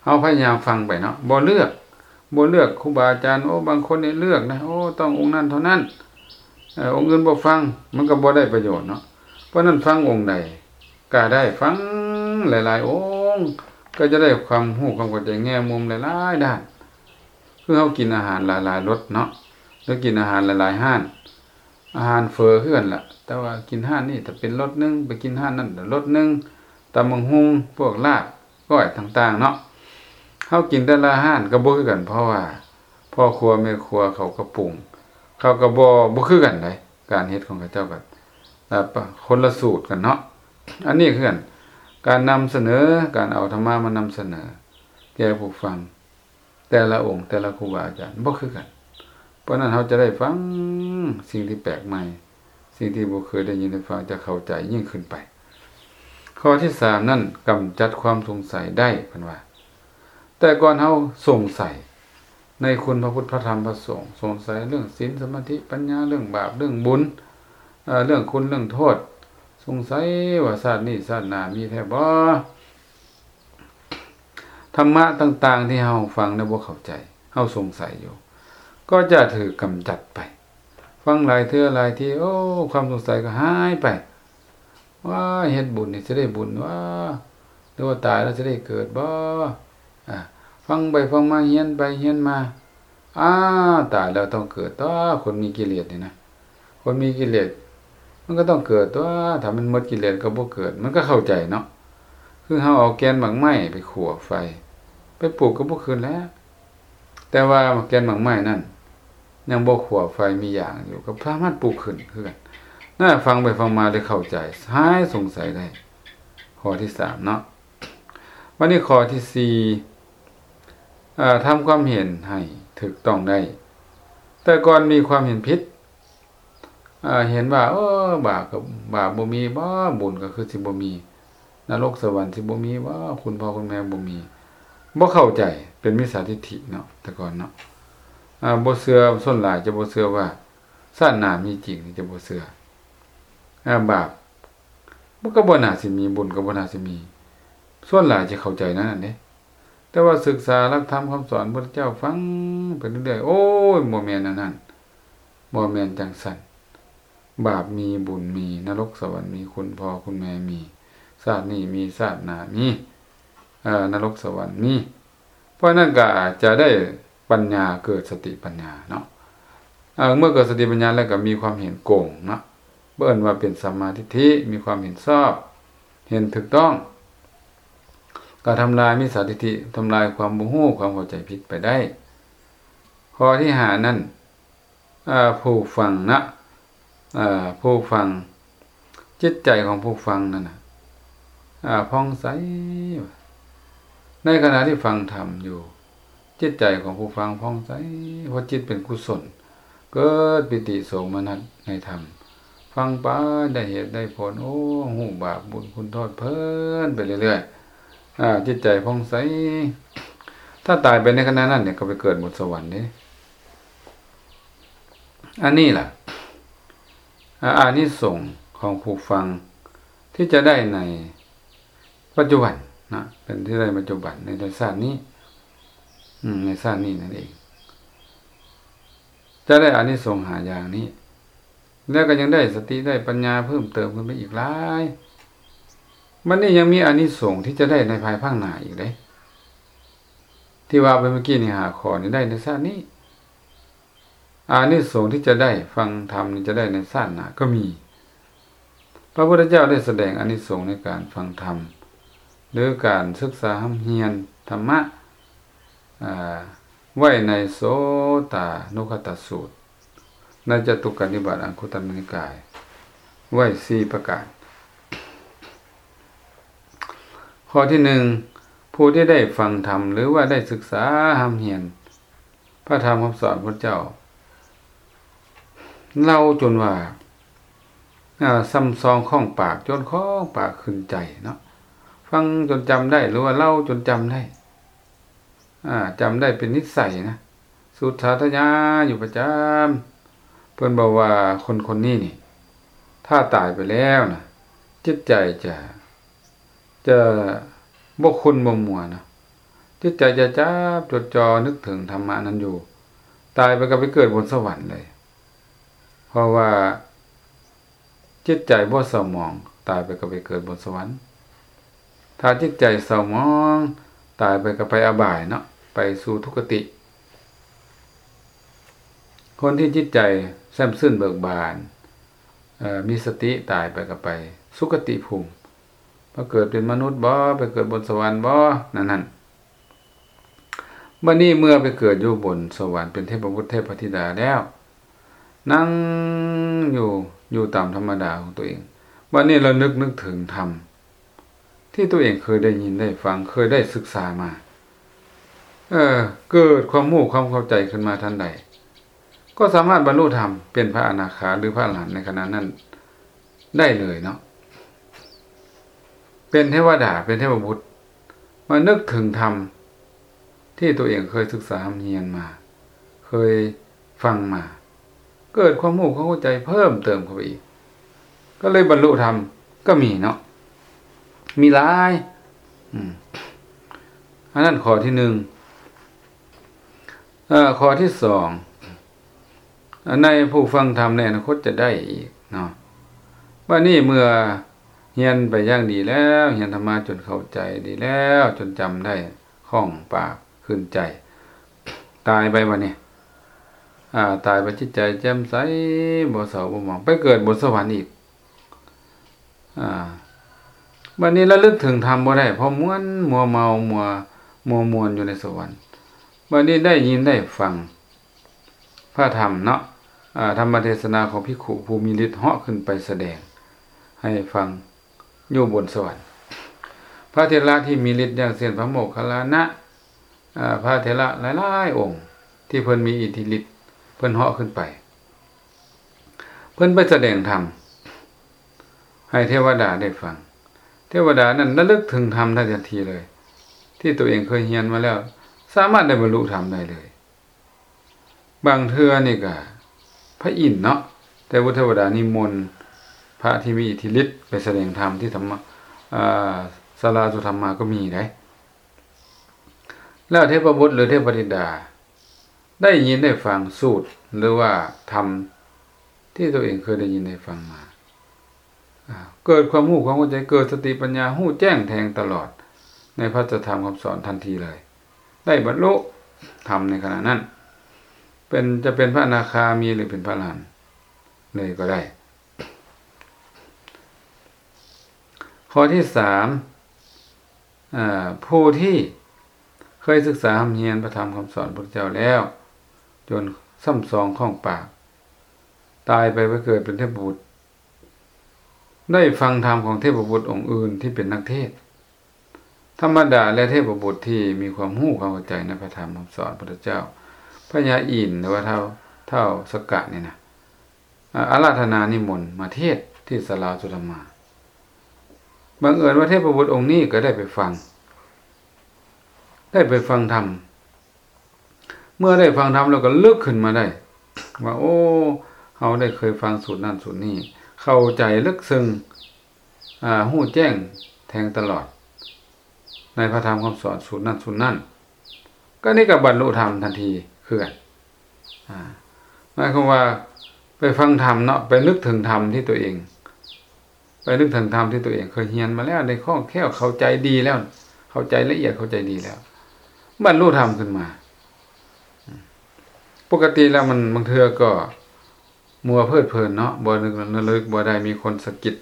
ເຮົາພະຍາຍາມຟັງໄປເນາະ, ບໍ່ເລືອກ ບໍ່ເລືອກຄູບາອາຈານ. ໂອ້ ບາງຄົນນີ້ເລືອກນະ ໂອ້ ຕ້ອງອົງນັ້ນເທົ່ານັ້ນ ເອີ ອົງອື່ນບໍ່ຟັງ ມັນກໍບໍ່ໄດ້ປະໂຫຍດເນາະ. ເພາະນັ້ນຟັງອົງໃດກໍໄດ້ ຟັງຫຼາຍໆອົງ ກໍຈະໄດ້ຄວາມຮູ້ຄວາມເຂົ້າໃຈແງ່ມຸມຫຼາຍໆດ້ານ. ຄືເຮົາກິນອາຫານຫຼາຍໆລົດເນາະ ຫຼືກິນອາຫານຫຼາຍໆຮ້ານ ອາຫານເຝີຄືກັນລະ ແຕ່ວ່າກິນຮ້ານນີ້ຖ້າເປັນລົດໜຶ່ງ ໄປກິນຮ້ານນັ້ນລົດໜຶ່ງ ຕຳບັກຫຸ່ງ ພວກລາບ ກ້ອຍຕ່າງໆເນາະ ເຮົາກິນແຕ່ລະຮ້ານກໍບໍ່ຄືກັນ ເພາະວ່າພໍ່ຄົວແມ່ຄົວເຂົາກໍປຸງ ເຂົາກໍບໍ່ ບໍ່ຄືກັນໃດ ການເຮັດຂອງເຂົາເຈົ້າກໍ ເອີ ປະ ຄົນລະສູດກັນເນາະ. ອັນນີ້ຄືກັນ ການນຳສະເໜີ ການເອົາທຳມະມານຳສະເໜີແກ່ຜູ້ຟັງ ແຕ່ລະອົງ ແຕ່ລະຄູບາອາຈານບໍ່ຄືກັນ. ເພາະນັ້ນເຮົາຈະໄດ້ຟັງສິ່ງທີ່ແປກໃໝ່ ສິ່ງທີ່ບໍ່ເຄີຍໄດ້ຍິນໄດ້ຟັງ ຈະເຂົ້າໃຈຍິ່ງຂຶ້ນໄປ. ຂໍ້ທີສາມນັ້ນ ກຳຈັດຄວາມສົງໄສໄດ້ ເພິ່ນວ່າ. ແຕ່ກ່ອນເຮົາສົງໄສໃນຄຸນພະພຸດ ພະທຳ ພະສົງ, ສົງໄສເລື່ອງສິນ ສະມາທິ ປັນຍາ, ເລື່ອງບາບ ເລື່ອງບຸນ, ເອີ ເລື່ອງຄຸນ ເລື່ອງໂທດ, ສົງໄສວ່າຊາດນີ້ຊາດໜ້າມີແທ້ບໍ່? ທຳມະຕ່າງໆທີ່ເຮົາຟັງແລ້ວບໍ່ເຂົ້າໃຈ ເຮົາສົງໄສຢູ່ ກໍຈະຖືກກຳຈັດໄປ. ຟັງຫຼາຍເທື່ອຫຼາຍທີ ໂອ້ ຄວາມສົງໄສກໍຫາຍໄປ. ວ້າ ເຮັດບຸນນີ້ຊິໄດ້ບຸນຫວາ ຫຼືວ່າຕາຍແລ້ວຊິໄດ້ເກີດບໍ່? ອາ ຟັງໄປຟັງມາ ຮຽນໄປຮຽນມາ ອ້າ ຕາຍແລ້ວຕ້ອງເກີດຕົວະ ຄົນມີກິເລດນີ້ນະ. ຄົນມີກິເລດມັນກໍຕ້ອງເກີດຕົວະ ຖ້າມັນໝົດກິເລດກໍບໍ່ເກີດ ມັນກໍເຂົ້າໃຈເນາະ. ຄືເຮົາເອົາແກ່ນໝາກໄມ້ໄປຂົ້ວໄຟ ໄປປູກກໍບໍ່ຂຶ້ນແລ້ວ ແຕ່ວ່າແກ່ນໝາກໄມ້ນັ້ນຍັງບໍ່ຂົ້ວໄຟ ມີຢາງຢູ່ ກໍສາມາດປູກຂຶ້ນຄືກັນນະ. ຟັງໄປຟັງມາໄດ້ເຂົ້າໃຈ ຫາຍສົງໄສໄດ້. ຂໍ້ທີສາມເນາະ. ບັດນີ້ຂໍ້ທີສີ່ ເອີ ທຳຄວາມເຫັນໃຫ້ຖືກຕ້ອງໄດ້. ແຕ່ກ່ອນມີຄວາມເຫັນຜິດ ເອີ ເຫັນວ່າ ໂອ້ ບາບກໍ ບາບບໍ່ມີບໍ? ບຸນກໍຄືຊິບໍ່ມີ? ນະລົກສະຫວັນຊິບໍ່ມີບໍ? ຄຸນພໍ່ຄຸນແມ່ບໍ່ມີ? ບໍ່ເຂົ້າໃຈ ເປັນມິດສາທິດຖິເນາະ ແຕ່ກ່ອນເນາະ. ອາ ບໍ່ເຊື່ອ ສ່ວນຫຼາຍຈະບໍ່ເຊື່ອວ່າຊາດໜ້າມີຈິງ ຈະບໍ່ເຊື່ອ. ອາ ບາບ ມັນກໍບໍ່ໜ້າຊິມີ ບຸນກໍບໍ່ໜ້າຊິມີ ສ່ວນຫຼາຍຈະເຂົ້າໃຈແນວນັ້ນເດ້. ແຕ່ວ່າສຶກສາຫຼັກທຳຄຳສອນພຸດທະເຈົ້າ ຟັງໄປເລື້ອຍໆ ໂອ້ຍ ບໍ່ແມ່ນແນວນັ້ນ ບໍ່ແມ່ນຈັ່ງຊັ້ນ. ບາບມີ ບຸນມີ ນະລົກສະຫວັນມີ ຄຸນພໍ່ຄຸນແມ່ມີ ຊາດນີ້ມີ ຊາດໜ້າມີ ເອີ ນະລົກສະຫວັນມີ. ເພາະນັ້ນກໍຈະໄດ້ປັນຍາ ເກີດສະຕິປັນຍາເນາະ. ເອີ ເມື່ອເກີດສະຕິປັນຍາແລ້ວກໍມີຄວາມເຫັນກົງເນາະ ເອີ້ນວ່າເປັນສຳມາທິດຖິ ມີຄວາມເຫັນຊອບ ເຫັນຖືກຕ້ອງ ກໍທຳລາຍມິດສາທິດຖິ ທຳລາຍຄວາມບໍ່ຮູ້ ຄວາມເຂົ້າໃຈຜິດໄປໄດ້. ຂໍ້ທີຫ້ານັ້ນ ເອີ ຜູ້ຟັງນະ ເອີ ຜູ້ຟັງ ຈິດໃຈຂອງຜູ້ຟັງນັ້ນນະ ອາ ຜ່ອງໃສ. ໃນຂະນະທີ່ຟັງທຳຢູ່ ຈິດໃຈຂອງຜູ້ຟັງຜ່ອງໃສ ເພາະຈິດເປັນກຸສົນ ເກີດປີຕິໂສມະນັດໃນທຳ ຟັງໄປໄດ້ເຫດໄດ້ຜົນ ໂອ້ ຮູ້ບາບບຸນຄຸນໂທດເພີນໄປເລື້ອຍໆ ອາ ຈິດໃຈຜ່ອງໃສ. ຖ້າຕາຍໄປໃນຂະນະນັ້ນນີ້ ກໍໄປເກີດບົນສະຫວັນເດ້. ອັນນີ້ລະ ອາ ອານິສົງຂອງຜູ້ຟັງທີ່ຈະໄດ້ໃນປັດຈຸບັນນະ ເປັນທີ່ໄດ້ປັດຈຸບັນໃນ ໃນຊາດນີ້ ອືມ ໃນຊາດນີ້ນັ້ນເອງ ຈະໄດ້ອານິສົງຫ້າຢ່າງນີ້ ແລ້ວກໍຍັງໄດ້ສະຕິໄດ້ປັນຍາເພີ່ມເຕີມຂຶ້ນໄປອີກຫຼາຍ. ບັດນີ້ຍັງມີອານິສົງທີ່ຈະໄດ້ໃນພາຍພາກໜ້າອີກເດ້ ທີ່ວ່າໄປເມື່ອກີ້ນີ້ ຫ້າຂໍ້ນີ້ໄດ້ໃນຊາດນີ້. ອານິສົງທີ່ຈະໄດ້ຟັງທຳນີ້ ຈະໄດ້ໃນຊາດໜ້າກໍມີ. ພະພຸດທະເຈົ້າໄດ້ສະແດງອານິສົງໃນການຟັງທຳ ຫຼື ການສຶກສາຮ່ຳຮຽນທຳມະ ອາ ໄວ້ໃນໂສຕານຸຄະຕະສູດ ໃນຈະຕຸກກະນິບາດອັງຄຸດຕະນິກາຍ ໄວ້ສີ່ປະການ. ຂໍ້ທີໜຶ່ງ ຜູ້ທີ່ໄດ້ຟັງທຳ ຫຼືວ່າໄດ້ສຶກສາຮ່ຳຮຽນພະທຳຄຳສອນພະເຈົ້າ ເລົ່າຈົນວ່າ ອາ ຊ່ຳຊອງຂ້ອງປາກ ຈົນຂ້ອງປາກຂຶ້ນໃຈເນາະ. ຟັງຈົນຈຳໄດ້ ຫຼືວ່າເລົ່າຈົນຈຳໄດ້ ອາ ຈຳໄດ້ເປັນນິໄສນະ ສູດສາທະຍາຢູ່ປະຈຳ. ເພິ່ນບອກວ່າຄົນຄົນນີ້ນີ້ ຖ້າຕາຍໄປແລ້ວນະ ຈິດໃຈຈະ ຈະບໍ່ຂຸ້ນບໍ່ມົວນະ ຈິດໃຈຈະຈັບຈົດຈ່ອນຶກເຖິງທຳມະນັ້ນຢູ່, ຕາຍໄປກໍໄປເກີດບົນສະຫວັນເລີຍ. ເພາະວ່າຈິດໃຈບໍ່ເສົ້າໝອງ, ຕາຍໄປກໍໄປເກີດບົນສະຫວັນ. ຖ້າຈິດໃຈເສົ້າໝອງ, ຕາຍໄປກໍໄປອະບາຍເນາະ, ໄປສູ່ທຸກຄະຕິ. ຄົນທີ່ຈິດໃຈແຊ່ມຊື່ນເບີກບານ, ເອີ, ມີສະຕິ, ຕາຍໄປກໍໄປສຸຄະຕິພູມ, ມາເກີດເປັນມະນຸດບໍ, ໄປເກີດບົນສະຫວັນບໍ, ນັ້ນໆ. ບັດນີ້ເມື່ອໄປເກີດຢູ່ບົນສະຫວັນເປັນເທບະບຸດເທບະທິດາແລ້ວ, ນັ່ງຢູ່, ຢູ່ຕາມທຳມະດາຂອງຕົວເອງ. ບັດນີ້ລະນຶກ, ນຶກເຖິງທຳທີ່ຕົວເອງເຄີຍໄດ້ຍິນໄດ້ຟັງ, ເຄີຍໄດ້ສຶກສາມາ. ເອີ, ເກີດຄວາມຮູ້ຄວາມເຂົ້າໃຈຂຶ້ນມາທັນໃດ, ກໍສາມາດບັນລຸທຳເປັນພະອະນາຄາ ຫຼື ພະອະລະຫັນໃນຂະນະນັ້ນໄດ້ເລີຍເນາະ. ເປັນເທວະດາ, ເປັນເທບະບຸດ, ມານຶກເຖິງທຳທີ່ຕົວເອງເຄີຍສຶກສາຮ່ຳຮຽນມາ, ເຄີຍຟັງມາ, ເກີດຄວາມຮູ້ຄວາມເຂົ້າໃຈເພີ່ມເຕີມເຂົ້າໄປອີກ, ກໍເລີຍບັນລຸທຳກໍມີເນາະ, ມີຫຼາຍ. ອືມ, ອັນນັ້ນຂໍ້ທີໜຶ່ງ. ເອີ, ຂໍ້ທີສອງ, ໃນຜູ້ຟັງທຳໃນອະນາຄົດຈະໄດ້ອີກເນາະ. ບັດນີ້ເມື່ອຮຽນໄປຢ່າງດີແລ້ວ, ຮຽນທຳມະຈົນເຂົ້າໃຈດີແລ້ວ, ຈົນຈຳໄດ້ຄ່ອງປາກຂຶ້ນໃຈ, ຕາຍໄປບັດນີ້, ອາ, ຕາຍໄປຈິດໃຈແຈ່ມໃສ, ບໍ່ເສົ້າບໍ່ໝອງ, ໄປເກີດບົນສະຫວັນອີກ. ອາ, ບັດນີ້ລະລຶກເຖິງທຳບໍ່ໄດ້, ເພາະມ່ວນມົວເມົາ, ມົວ, ມົວມ່ວນຢູ່ໃນສະຫວັນ. ບັດນີ້ໄດ້ຍິນໄດ້ຟັງ ພະທຳເນາະ, ອາ, ທຳມະເທສະນາຂອງພິກຂຸຜູ້ມີລິດເຫາະຂຶ້ນໄປສະແດງໃຫ້ຟັງຢູ່ບົນສະຫວັນ. ພະເຖລະທີ່ມີລິດ ຢ່າງເຊັ່ນ ພະໂມກຄັນລານະ, ອາ, ພະເຖລະຫຼາຍໆອົງທີ່ເພິ່ນມີອິດທິລິດ, ເພິ່ນເຫາະຂຶ້ນໄປ, ເພິ່ນໄປສະແດງທຳໃຫ້ເທວະດາໄດ້ຟັງ. ເທວະດານັ້ນລະລຶກເຖິງທຳໄດ້ທັນທີເລີຍ, ທີ່ຕົວເອງເຄີຍຮຽນມາແລ້ວ, ສາມາດໄດ້ບັນລຸທຳໄດ້ເລີຍ. ບາງເທື່ອນີ້ກະພະອິນເນາະ, ແຕ່ວ່າເທວະດານິມົນພະທີ່ມີອິດທິລິດໄປສະແດງທຳທີ່ທຳມະ, ອາ, ສາລາສຸທຳມາກໍມີໄດ໋. ແລ້ວເທບະບຸດ ຫຼື ເທບະທິດາໄດ້ຍິນໄດ້ຟັງສູດ ຫຼືວ່າທຳທີ່ຕົວເອງເຄີຍໄດ້ຍິນໄດ້ຟັງມາ, ອາ, ເກີດຄວາມຮູ້ຄວາມເຂົ້າໃຈ, ເກີດສະຕິປັນຍາ, ຮູ້ແຈ້ງແທງຕະຫຼອດໃນພະສັດທຳຄຳສອນທັນທີເລີຍ. ໄດ້ບັນລຸທຳໃນຂະນະນັ້ນ, ເປັນ, ຈະເປັນພະອະນາຄາມີ ຫຼື ເປັນພະອະລະຫັນເລີຍກໍໄດ້. ຂໍ້ທີສາມ, ອາ, ຜູ້ທີ່ເຄີຍສຶກສາຮ່ຳຮຽນພະທຳຄຳສອນພະພຸດທະເຈົ້າແລ້ວ, ຈົນຊ່ຳຊອງຄ່ອງປາກ, ຕາຍໄປໄປເກີດເປັນເທບະບຸດ, ໄດ້ຟັງທຳຂອງເທບະບຸດອົງອື່ນທີ່ເປັນນັກເທດ ທຳມະດາ ແລະ ເທບະບຸດທີ່ມີຄວາມຮູ້ຄວາມເຂົ້າໃຈໃນພະທຳຄຳສອນພຸດທະເຈົ້າ, ພະຍາອິນ ຫຼືວ່າທ້າວ, ທ້າວສັກກະນີ້ນະ, ອາ, ອາລາທະນານິມົນມາເທດທີ່ສາລາສຸທຳມາ. ບັງເອີນວ່າເທບະບຸດອົງນີ້ກໍໄດ້ໄປຟັງ, ໄດ້ໄປຟັງທຳ. ເມື່ອໄດ້ຟັງທຳແລ້ວກໍລຶກຂຶ້ນມາໄດ້ວ່າ ໂອ້ ເຮົາໄດ້ເຄີຍຟັງສູດນັ້ນສູດນີ້, ເຂົ້າໃຈເລິກເຊິ່ງ, ອາ, ຮູ້ແຈ້ງແທງຕະຫຼອດໃນພະທຳຄຳສອນສູດນັ້ນສູດນັ້ນ, ກໍນີ້ກໍບັນລຸທຳທັນທີຄືກັນ. ອາ, ໝາຍຄວາມວ່າໄປຟັງທຳເນາະ, ໄປນຶກເຖິງທຳທີ່ຕົວເອງ ໄປນຶກເຖິງທຳທີ່ຕົວເອງເຄີຍຮຽນມາແລ້ວ, ໄດ້ຄ່ອງແຄ້ວ, ເຂົ້າໃຈດີແລ້ວ, ເຂົ້າໃຈລະອຽດ, ເຂົ້າໃຈດີແລ້ວ, ບັນລຸທຳຂຶ້ນມາ. ປົກກະຕິແລ້ວມັນບາງເທື່ອກໍມົວເພີດເພີນເນາະ, ບໍ່ນຶກລະລຶກບໍ່ໄດ້, ມີຄົນສະກິດ,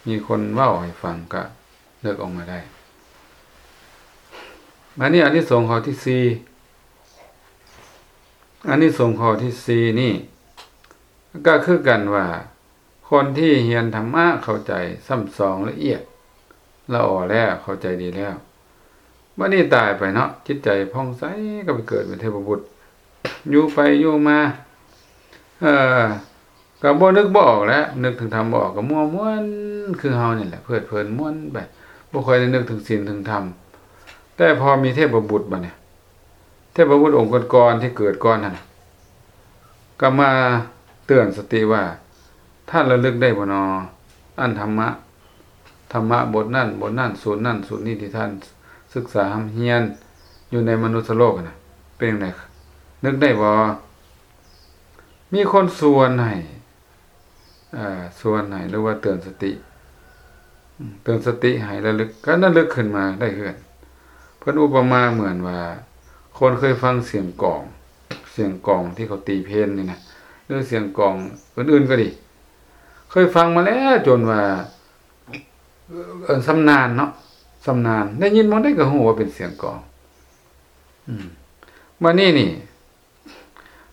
ມີຄົນເວົ້າໃຫ້ຟັງ, ກໍນຶກອອກມາໄດ້. ບາດນີ້ອານິສົງຂໍ້ທີສີ່, ອານິສົງຂໍ້ທີສີ່ນີ້ ກໍຄືກັນວ່າ ຄົນທີ່ຮຽນທຳມະເຂົ້າໃຈ, ຊ່ຳຊອງລະອຽດລະອໍແລ້ວ, ເຂົ້າໃຈດີແລ້ວ, ບັດນີ້ຕາຍໄປເນາະ, ຈິດໃຈຜ່ອງໃສ, ກໍໄປເກີດເປັນເທບະບຸດ, ຢູ່ໄປຢູ່ມາ, ເອີ, ກໍບໍ່ນຶກບໍ່ອອກແຫຼະ, ນຶກເຖິງທຳບໍ່ອອກ, ກໍມົວມ່ວນຄືເຮົານີ້ແຫຼະ, ເພີດເພີນມ່ວນໄປ, ບໍ່ຄ່ອຍໄດ້ນຶກເຖິງສິນເຖິງທຳ. ແຕ່ພໍມີເທບະບຸດບັດນີ້, ເທບະບຸດອົງກ່ອນໆ ທີ່ເກີດກ່ອນຫັ້ນ ກໍມາເຕືອນສະຕິວ່າ ທ່ານລະລຶກໄດ້ບໍ່ນໍ ອັນທຳມະ, ທຳມະບົດນັ້ນບົດນັ້ນ, ສູດນັ້ນສູດນີ້ ທີ່ທ່ານສຶກສາຮ່ຳຮຽນ, ຢູ່ໃນມະນຸດສະໂລກຫັ້ນນະ ເປັນຈັ່ງໃດ? ນຶກໄດ້ບໍ່? ມີຄົນຊວນໃຫ້ ເອີ ຊວນໃຫ້ ຫຼືວ່າເຕືອນສະຕິ ເຕືອນສະຕິໃຫ້ລະລຶກ ກະລະລຶກຂຶ້ນມາໄດ້ຄືກັນ. ເພິ່ນອຸປະມາເໝືອນວ່າ ຄົນເຄີຍຟັງສຽງກອງ ສຽງກອງທີ່ເຂົາຕີເພນນີ້ນະ ຫຼືສຽງກອງອື່ນໆກໍດີ ເຄີຍຟັງມາແລ້ວຈົນວ່າ ເອີ້ນຊຳນານເນາະ ຊຳນານ ໄດ້ຍິນບ່ອນໃດກໍຮູ້ວ່າເປັນສຽງກອງ. ອືມ ບາດນີ້ນີ້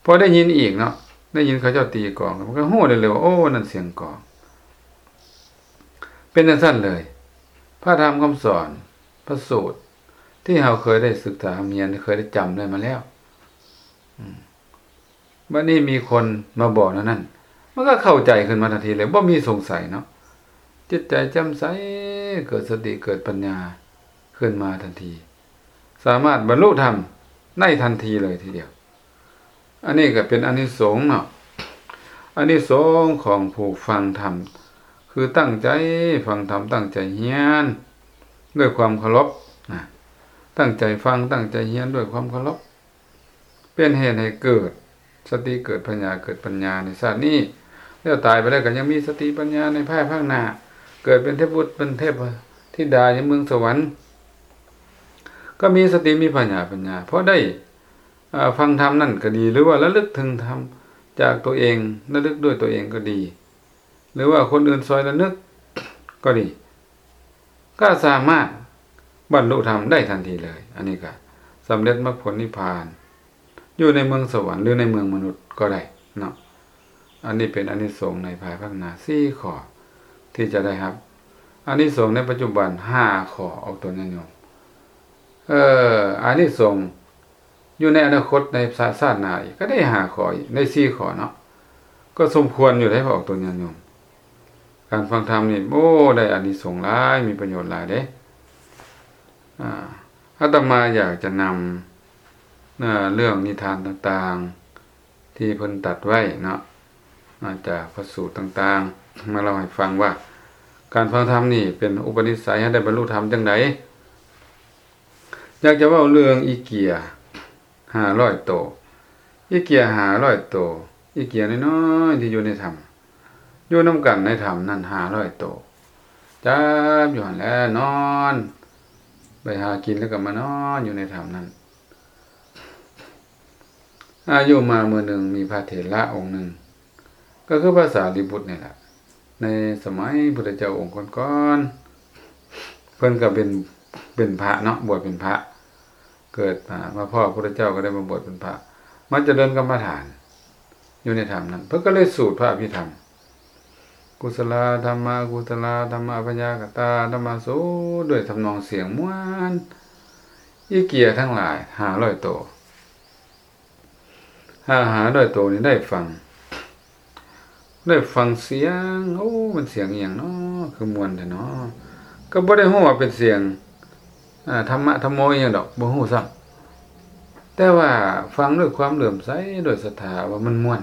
ພໍໄດ້ຍິນອີກເນາະ ໄດ້ຍິນເຂົາເຈົ້າຕີກອງ ມັນກໍຮູ້ໄດ້ເລີຍວ່າ ໂອ້ ນັ້ນສຽງກອງ. ເປັນຈັ່ງຊັ້ນເລີຍ ພະທຳຄຳສອນ ພະສູດ ທີ່ເຮົາເຄີຍໄດ້ສຶກສາຮ່ຳຮຽນ ເຄີຍໄດ້ຈຳໄດ້ມາແລ້ວ ອືມ ບາດນີ້ມີຄົນມາບອກແນວນັ້ນ ມັນກໍເຂົ້າໃຈຂຶ້ນມາທັນທີເລີຍ ບໍ່ມີສົງໄສເນາະ ຈິດໃຈແຈ່ມໃສ ເກີດສະຕິ ເກີດປັນຍາຂຶ້ນມາທັນທີ ສາມາດບັນລຸທຳໄດ້ທັນທີເລີຍທີດຽວ. ອັນນີ້ກໍເປັນອານິສົງເນາະ ອານິສົງຂອງຜູ້ຟັງທຳ ຄືຕັ້ງໃຈຟັງທຳ ຕັ້ງໃຈຮຽນດ້ວຍຄວາມເຄົາລົບນະ ຕັ້ງໃຈຟັງ ຕັ້ງໃຈຮຽນດ້ວຍຄວາມເຄົາລົບ ເປັນເຫດໃຫ້ເກີດສະຕິ ເກີດປັນຍາ ເກີດປັນຍາໃນຊາດນີ້ ແລ້ວຕາຍໄປແລ້ວກໍຍັງມີສະຕິປັນຍາໃນພາຍພາກໜ້າ ເກີດເປັນເທບບຸດເປັນເທບທິດາຢູ່ເມືອງສະຫວັນ ກໍມີສະຕິ ມີພະຍາ ປັນຍາ ເພາະໄດ້ ເອີ ຟັງທຳນັ້ນກໍດີ ຫຼືວ່າລະລຶກເຖິງທຳຈາກຕົວເອງ ລະລຶກດ້ວຍຕົວເອງກໍດີ ຫຼືວ່າຄົນອື່ນຊ່ອຍລະນຶກກໍດີ ກໍສາມາດບັນລຸທຳໄດ້ທັນທີເລີຍ. ອັນນີ້ກໍສຳເລັດມັກຜົນນິບພານ ຢູ່ໃນເມືອງສະຫວັນ ຫຼືໃນເມືອງມະນຸດກໍໄດ້ເນາະ. ອັນນີ້ເປັນອານິສົງໃນພາຍພາກໜ້າສີ່ຂໍ້ທີ່ຈະໄດ້ຮັບ. ອານິສົງໃນປັດຈຸບັນຫ້າຂໍ້ ອອກຕົນຍາດໂຍມ. ເອີ ອານິສົງຢູ່ໃນອະນາຄົດ ໃນຊາດ ຊາດໜ້າອີກ ກໍໄດ້ຫ້າຂໍ້ອີກ ໄດ້ສີ່ຂໍ້ເນາະ. ກໍສົມຄວນຢູ່ເດ້ ອອກຕົນຍາດໂຍມ. ການຟັງທຳນີ້ ໂອ້ ໄດ້ອານິສົງຫຼາຍ ມີປະໂຫຍດຫຼາຍເດ້. ອາ ອາດຕະມາຢາກຈະນຳ ເອີ ເລື່ອງນິທານຕ່າງໆ ທີ່ເພິ່ນຕັດໄວ້ເນາະ ອາ ຈາກພະສູດຕ່າງໆ ມາເລົ່າໃຫ້ຟັງວ່າ ການຟັງທຳນີ້ເປັນອຸປະນິໄສໃຫ້ໄດ້ບັນລຸທຳຈັ່ງໃດ. ຢາກຈະເວົ້າເລື່ອງອີເກຍຫ້າຮ້ອຍໂຕ ອີເກຍຫ້າຮ້ອຍໂຕ ອີເກຍນ້ອຍໆ ທີ່ຢູ່ໃນຖ້ຳ ຢູ່ນຳກັນໃນຖ້ຳນັ້ນຫ້າຮ້ອຍໂຕ ຈັບຢູ່ຫັ້ນແຫຼະ ນອນ ໄປຫາກິນແລ້ວກໍມານອນຢູ່ໃນຖ້ຳນັ້ນ. ອາ ຢູ່ມາມື້ໜຶ່ງ ມີພະເຖລະອົງໜຶ່ງ ກໍຄືພະສາລີບຸດນີ້ແຫຼະ ໃນສະໄໝພຸດທະເຈົ້າອົງກ່ອນໆ ເພິ່ນກໍເປັນ ເປັນພະເນາະ ບວດເປັນພະ ເກີດ ອາ ມາພໍ້ພຸດທະເຈົ້າກໍໄດ້ມາບວດເປັນພະ ມາຈະເລີນກຳມະຖານຢູ່ໃນຖ້ຳນັ້ນ ເພິ່ນກໍເລີຍສູດພະອະພິທຳ ກຸສະລາທຳມະ ອະກຸສະລາທຳມະ ອະພະຍາກະຕາທຳມະ ສູດດ້ວຍທຳນອງສຽງມ່ວນ ອີເກຍທັງຫຼາຍຫ້າຮ້ອຍໂຕ ຫ້າ ຫ້າຮ້ອຍໂຕນີ້ໄດ້ຟັງ ໄດ້ຟັງສຽງ ໂອ້ ມັນສຽງອີ່ຫຍັງເນາະ ຄືມ່ວນແທ້ເນາະ ກໍບໍ່ໄດ້ຮູ້ວ່າເປັນສຽງ ອາ ທຳມະທຳໂມອີ່ຫຍັງດອກ ບໍ່ຮູ້ຊ້ຳ ແຕ່ວ່າຟັງດ້ວຍຄວາມເຫຼື້ອມໃສ ດ້ວຍສັດທາວ່າມັນມ່ວນ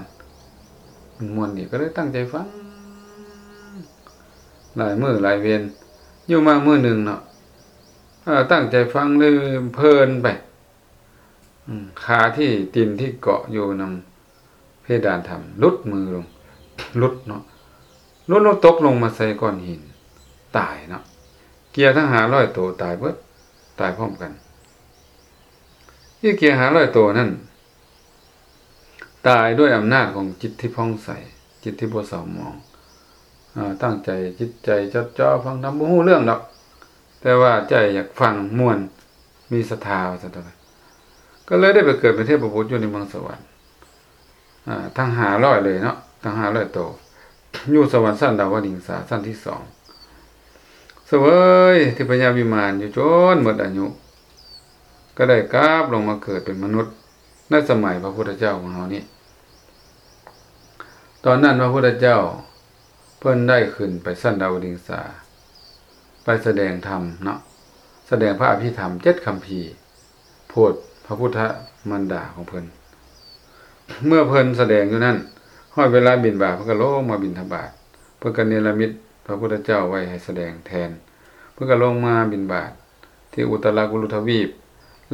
ມັນມ່ວນດີ ກໍເລີຍຕັ້ງໃຈຟັງ ຫຼາຍມື້ຫຼາຍເວນ ຢູ່ມາມື້ໜຶ່ງເນາະ ເອີ ຕັ້ງໃຈຟັງ ເລີຍເພີນໄປ ອາ ຂາທີ່ ຕີນທີ່ເກາະຢູ່ນຳ ເພດານຖ້ຳ ຫຼຸດມືລົງ ຫຼຸດເນາະ ຫຼຸດລົງ ຕົກລົງມາໃສ່ກ້ອນຫີນ ຕາຍເນາະ ເກຍທັງຫ້າຮ້ອຍໂຕຕາຍເບິດ ຕາຍພ້ອມກັນ. ອີເກຍຫ້າຮ້ອຍໂຕນັ້ນ ຕາຍດ້ວຍອຳນາດຂອງຈິດທີ່ຜ່ອງໃສ ຈິດທີ່ບໍ່ເສົ້າໝອງ ອາ ຕັ້ງໃຈ ຈິດໃຈຈົດຈ່ອຟັງທຳ ບໍ່ຮູ້ເລື່ອງດອກ ແຕ່ວ່າໃຈຢາກຟັງມ່ວນ ມີສັດທາວ່າຊັ້ນເຖາະ ກໍເລີຍໄດ້ໄປເກີດເປັນເທບບຸດຢູ່ໃນເມືອງສະຫວັນ ອາ ທັງຫ້າຮ້ອຍເລີຍເນາະ ທັງຫ້າຮ້ອຍໂຕ ຢູ່ສະຫວັນຊັ້ນດາວະດິງສາ ຊັ້ນທີສອງ ສະເຫວີຍທິບພະຍາວິມານຢູ່ຈົນໝົດອາຍຸ ກໍໄດ້ກັບລົງມາເກີດເປັນມະນຸດ ໃນສະໄໝພະພຸດທະເຈົ້າຂອງເຮົານີ້. ຕອນນັ້ນພະພຸດທະເຈົ້າ ເພິ່ນໄດ້ຂຶ້ນໄປຊັ້ນດາວະດິງສາ ໄປສະແດງທຳເນາະ ສະແດງພະອະພິທຳເຈັດຄຳພີ ໂຜດພະພຸດທະມານດາຂອງເພິ່ນ. ເມື່ອເພິ່ນສະແດງຢູ່ນັ້ນ ຮອດເວລາບິນບາດ ເພິ່ນກໍລົງມາບິນທະບາດ ເພິ່ນກໍເນລະມິດພະພຸດທະເຈົ້າໄວ້ໃຫ້ສະແດງແທນ ເພິ່ນກໍລົງມາບິນບາດທີ່ອຸດຕະລະກຸລຸທະວີບ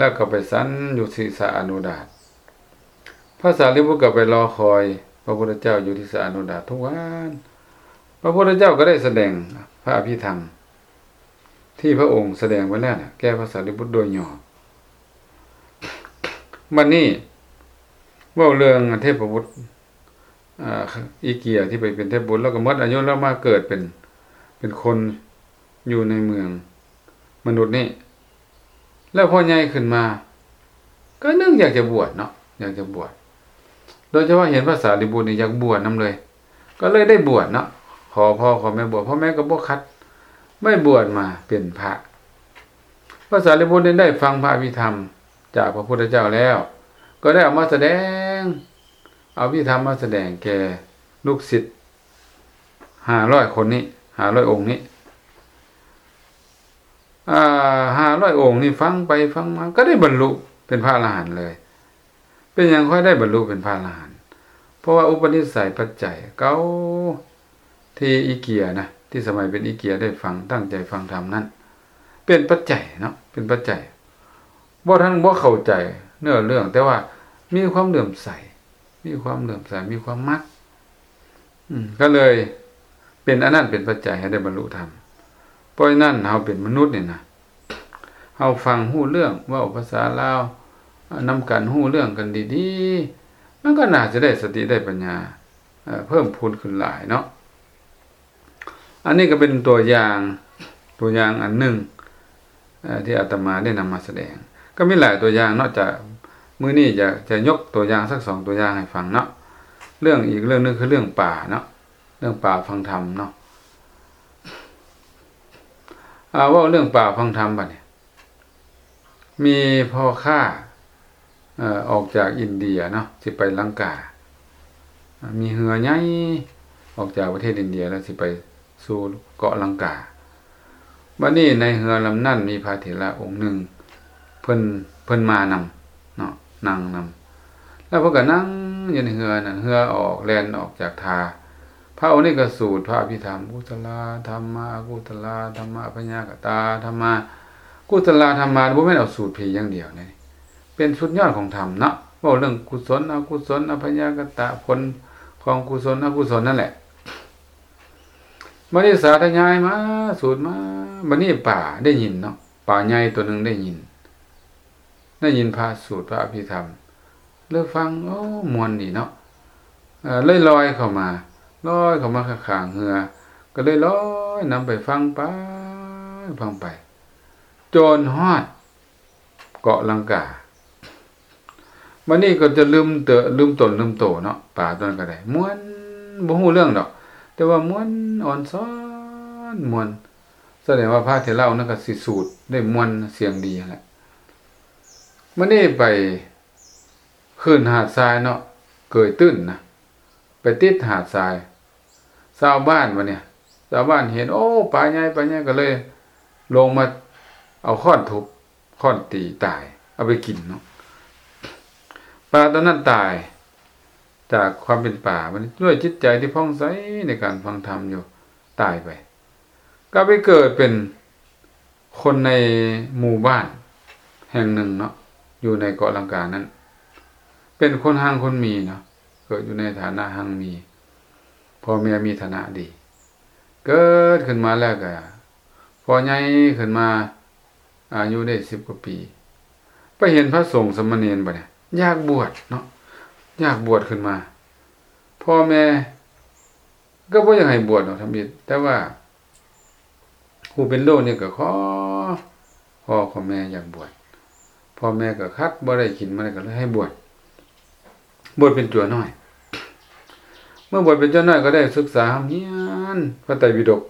ແລ້ວກໍໄປສັນຢູ່ທີ່ສະອະນຸດາດ. ພະສາລີບຸດກໍໄປລໍຄອຍພະພຸດທະເຈົ້າຢູ່ທີ່ສະອະນຸດາດທຸກວັນ. ພະພຸດທະເຈົ້າກໍໄດ້ສະແດງພະອະພິທຳທີ່ພະອົງສະແດງໄວ້ແລ້ວນະ ແກ່ພະສາລີບຸດໂດຍຫຍໍ້. ບັດນີ້ເວົ້າເລື່ອງເທບພະບຸດ ອາ ອີເກຍທີ່ໄປເປັນເທບບຸດ ແລ້ວກໍໝົດອາຍຸ ແລ້ວມາເກີດເປັນ ເປັນຄົນຢູ່ໃນເມືອງມະນຸດນີ້. ແລ້ວພໍໃຫຍ່ຂຶ້ນມາ ກໍນຶກຢາກຈະບວດເນາະ ຢາກຈະບວດ. ໂດຍສະເພາະເຫັນພະສາລີບຸດນີ້ຢາກບວດນຳເລີຍ ກໍເລີຍໄດ້ບວດເນາະ ຂໍພໍ່ຂໍແມ່ບວດ. ພໍ່ແມ່ກໍບໍ່ຂັດ ໄດ້ບວດມາເປັນພະ. ພະສາລີບຸດນີ້ໄດ້ຟັງພະອະພິທຳຈາກພະພຸດທະເຈົ້າແລ້ວ ກໍໄດ້ເອົາມາສະແດງ ເອົາອະພິທຳມາສະແດງແກ່ລູກສິດຫ້າຮ້ອຍຄົນນີ້ ຫ້າຮ້ອຍອົງນີ້. ອາ ຫ້າຮ້ອຍອົງນີ້ຟັງໄປຟັງມາ ກໍໄດ້ບັນລຸເປັນພະອະລະຫັນເລີຍ. ເປັນຫຍັງຄ່ອຍໄດ້ບັນລຸເປັນພະອະລະຫັນ? ເພາະວ່າອຸປະນິໄສປັດໄຈເກົ່າ ທີ່ອີເກຍນະ ທີ່ສະໄໝເປັນອີເກຍໄດ້ຟັງ ຕັ້ງໃຈຟັງທຳນັ້ນ ເປັນປັດໄຈເນາະ ເປັນປັດໄຈ. ບໍ່ທັນ ບໍ່ເຂົ້າໃຈເນື້ອເລື່ອງ ແຕ່ວ່າມີຄວາມເຫຼື້ອມໃສ ມີຄວາມເຫຼື້ອມໃສ ມີຄວາມມັກ ອືມ ກໍເລີຍເປັນອັນນັ້ນເປັນປັດໄຈໃຫ້ໄດ້ບັນລຸທຳ. ເພາະສະນັ້ນ ເຮົາເປັນມະນຸດນີ້ນະ ເຮົາຟັງຮູ້ເລື່ອງ ເວົ້າພາສາລາວນຳກັນ ຮູ້ເລື່ອງກັນດີໆ ມັນກໍໜ້າຈະໄດ້ສະຕິໄດ້ປັນຍາ ເອີ ເພີ່ມພູນຂຶ້ນຫຼາຍເນາະ. ອັນນີ້ກໍເປັນຕົວຢ່າງ ຕົວຢ່າງອັນໜຶ່ງ ເອີ ທີ່ອາດຕະມາໄດ້ນຳມາສະແດງ. ກໍມີຫຼາຍຕົວຢ່າງເນາະ ຈະ ມື້ນີ້ຈະ ຈະຍົກຕົວຢ່າງສັກສອງຕົວຢ່າງໃຫ້ຟັງເນາະ ເລື່ອງ ອີກເລື່ອງໜຶ່ງຄືເລື່ອງປ່າເນາະ ເລື່ອງປ່າຟັງທຳເນາະ. ອາ ເວົ້າເລື່ອງປ່າຟັງທຳບັດນີ້ ມີພໍ່ຄ້າ ເອີ ອອກຈາກອິນເດຍເນາະ ຊິໄປລັງກາ ມີເຮືອໃຫຍ່ອອກຈາກປະເທດອິນເດຍ ແລ້ວຊິໄປສູ່ເກາະລັງກາ. ບັດນີ້ໃນເຮືອລຳນັ້ນມີພະເຖລະອົງໜຶ່ງ ເພິ່ນ ເພິ່ນມານຳເນາະ ນັ່ງນຳ ແລ້ວເພິ່ນກໍນັ່ງຢູ່ໃນເຮືອນັ້ນ ເຮືອອອກ ແລ່ນອອກຈາກທ່າ. ພະອົງນີ້ກໍສູດພະອະພິທຳ ກຸສະລາທຳມາ ອະກຸສະລາທຳມາ ອະພະຍາກະຕາທຳມາ. ກຸສະລາທຳມາ ບໍ່ແມ່ນເອົາສູດຜີຢ່າງດຽວເດ້ ເປັນສຸດຍອດຂອງທຳເນາະ ເວົ້າເລື່ອງກຸສົນ ອະກຸສົນ ອະພະຍາກະຕະ ຜົນຂອງກຸສົນ ອະກຸສົນນັ້ນແຫຼະ. ບັດນີ້ສາທະຍາຍມາ ສູດມາ ບັດນີ້ປາໄດ້ຍິນເນາະ ປາໃຫຍ່ຕົວໜຶ່ງໄດ້ຍິນ ໄດ້ຍິນພະສູດພະອະພິທຳ ເລີຍຟັງ ໂອ້ ມ່ວນດີເນາະ ເອີ ເລີຍລອຍເຂົ້າມາ ລອຍເຂົ້າມາຂ້າງໆເຮືອ ກໍເລີຍລອຍນຳໄປຟັງໄປ ຟັງໄປ ຈົນຮອດເກາະລັງກາ. ບັດນີ້ກໍຈະລືມເຕີ ລືມຕົນລືມໂຕເນາະ ປາຕົວນັ້ນກໍໄດ້ ມ່ວນ ບໍ່ຮູ້ເລື່ອງດອກ ແຕ່ວ່າມ່ວນ ອ່ອນຊ້ອນ ມ່ວນ ສະແດງວ່າພະເຖລະອົງນັ້ນກໍຊິສູດໄດ້ມ່ວນ ສຽງດີຫັ້ນແຫຼະ. ບັດນີ້ໄປ ຂຶ້ນຫາດຊາຍເນາະ ເກີຍຕື້ນນະ ໄປຕິດຫາດຊາຍ. ຊາວບ້ານບັດນີ້ ຊາວບ້ານເຫັນ ໂອ້ ປາໃຫຍ່ ປາໃຫຍ່ ກໍເລີຍລົງມາເອົາຄ້ອນທຸບ ຄ້ອນຕີຕາຍ ເອົາໄປກິນເນາະ. ປາຕົວນັ້ນຕາຍຈາກຄວາມເປັນປາ ບັດນີ້ດ້ວຍຈິດໃຈທີ່ຜ່ອງໃສໃນການຟັງທຳຢູ່ ຕາຍໄປ ກໍໄປເກີດເປັນ ຄົນໃນໝູ່ບ້ານແຫ່ງໜຶ່ງເນາະ ຢູ່ໃນເກາະລັງການັ້ນ ເປັນຄົນຮັ່ງຄົນມີເນາະ ເກີດຢູ່ໃນຖານະຮັ່ງມີ ພໍ່ແມ່ມີຖານະດີ. ເກີດຂຶ້ນມາແລ້ວກໍ ພໍໃຫຍ່ຂຶ້ນມາ ອາຍຸໄດ້ສິບກວ່າປີ ໄປເຫັນພະສົງສາມະເນນບັດນີ້ ຢາກບວດເນາະ ຢາກບວດຂຶ້ນມາ. ພໍ່ແມ່ ກໍບໍ່ຢາກໃຫ້ບວດດອກທຳອິດ ແຕ່ວ່າຜູ້ເປັນລູກນີ້ກໍຂໍ ຂໍ ຂໍແມ່ຢາກບວດ ພໍ່ແມ່ກໍຂັດ ບໍ່ໄດ້ກິນ ບໍ່ໄດ້ ກໍເລີຍໃຫ້ບວດ ບວດເປັນຈົວນ້ອຍ. ເມື່ອບວດເປັນຈົວນ້ອຍກໍໄດ້ສຶກສາຮ່ຳຮຽນພະໄຕປິດົກ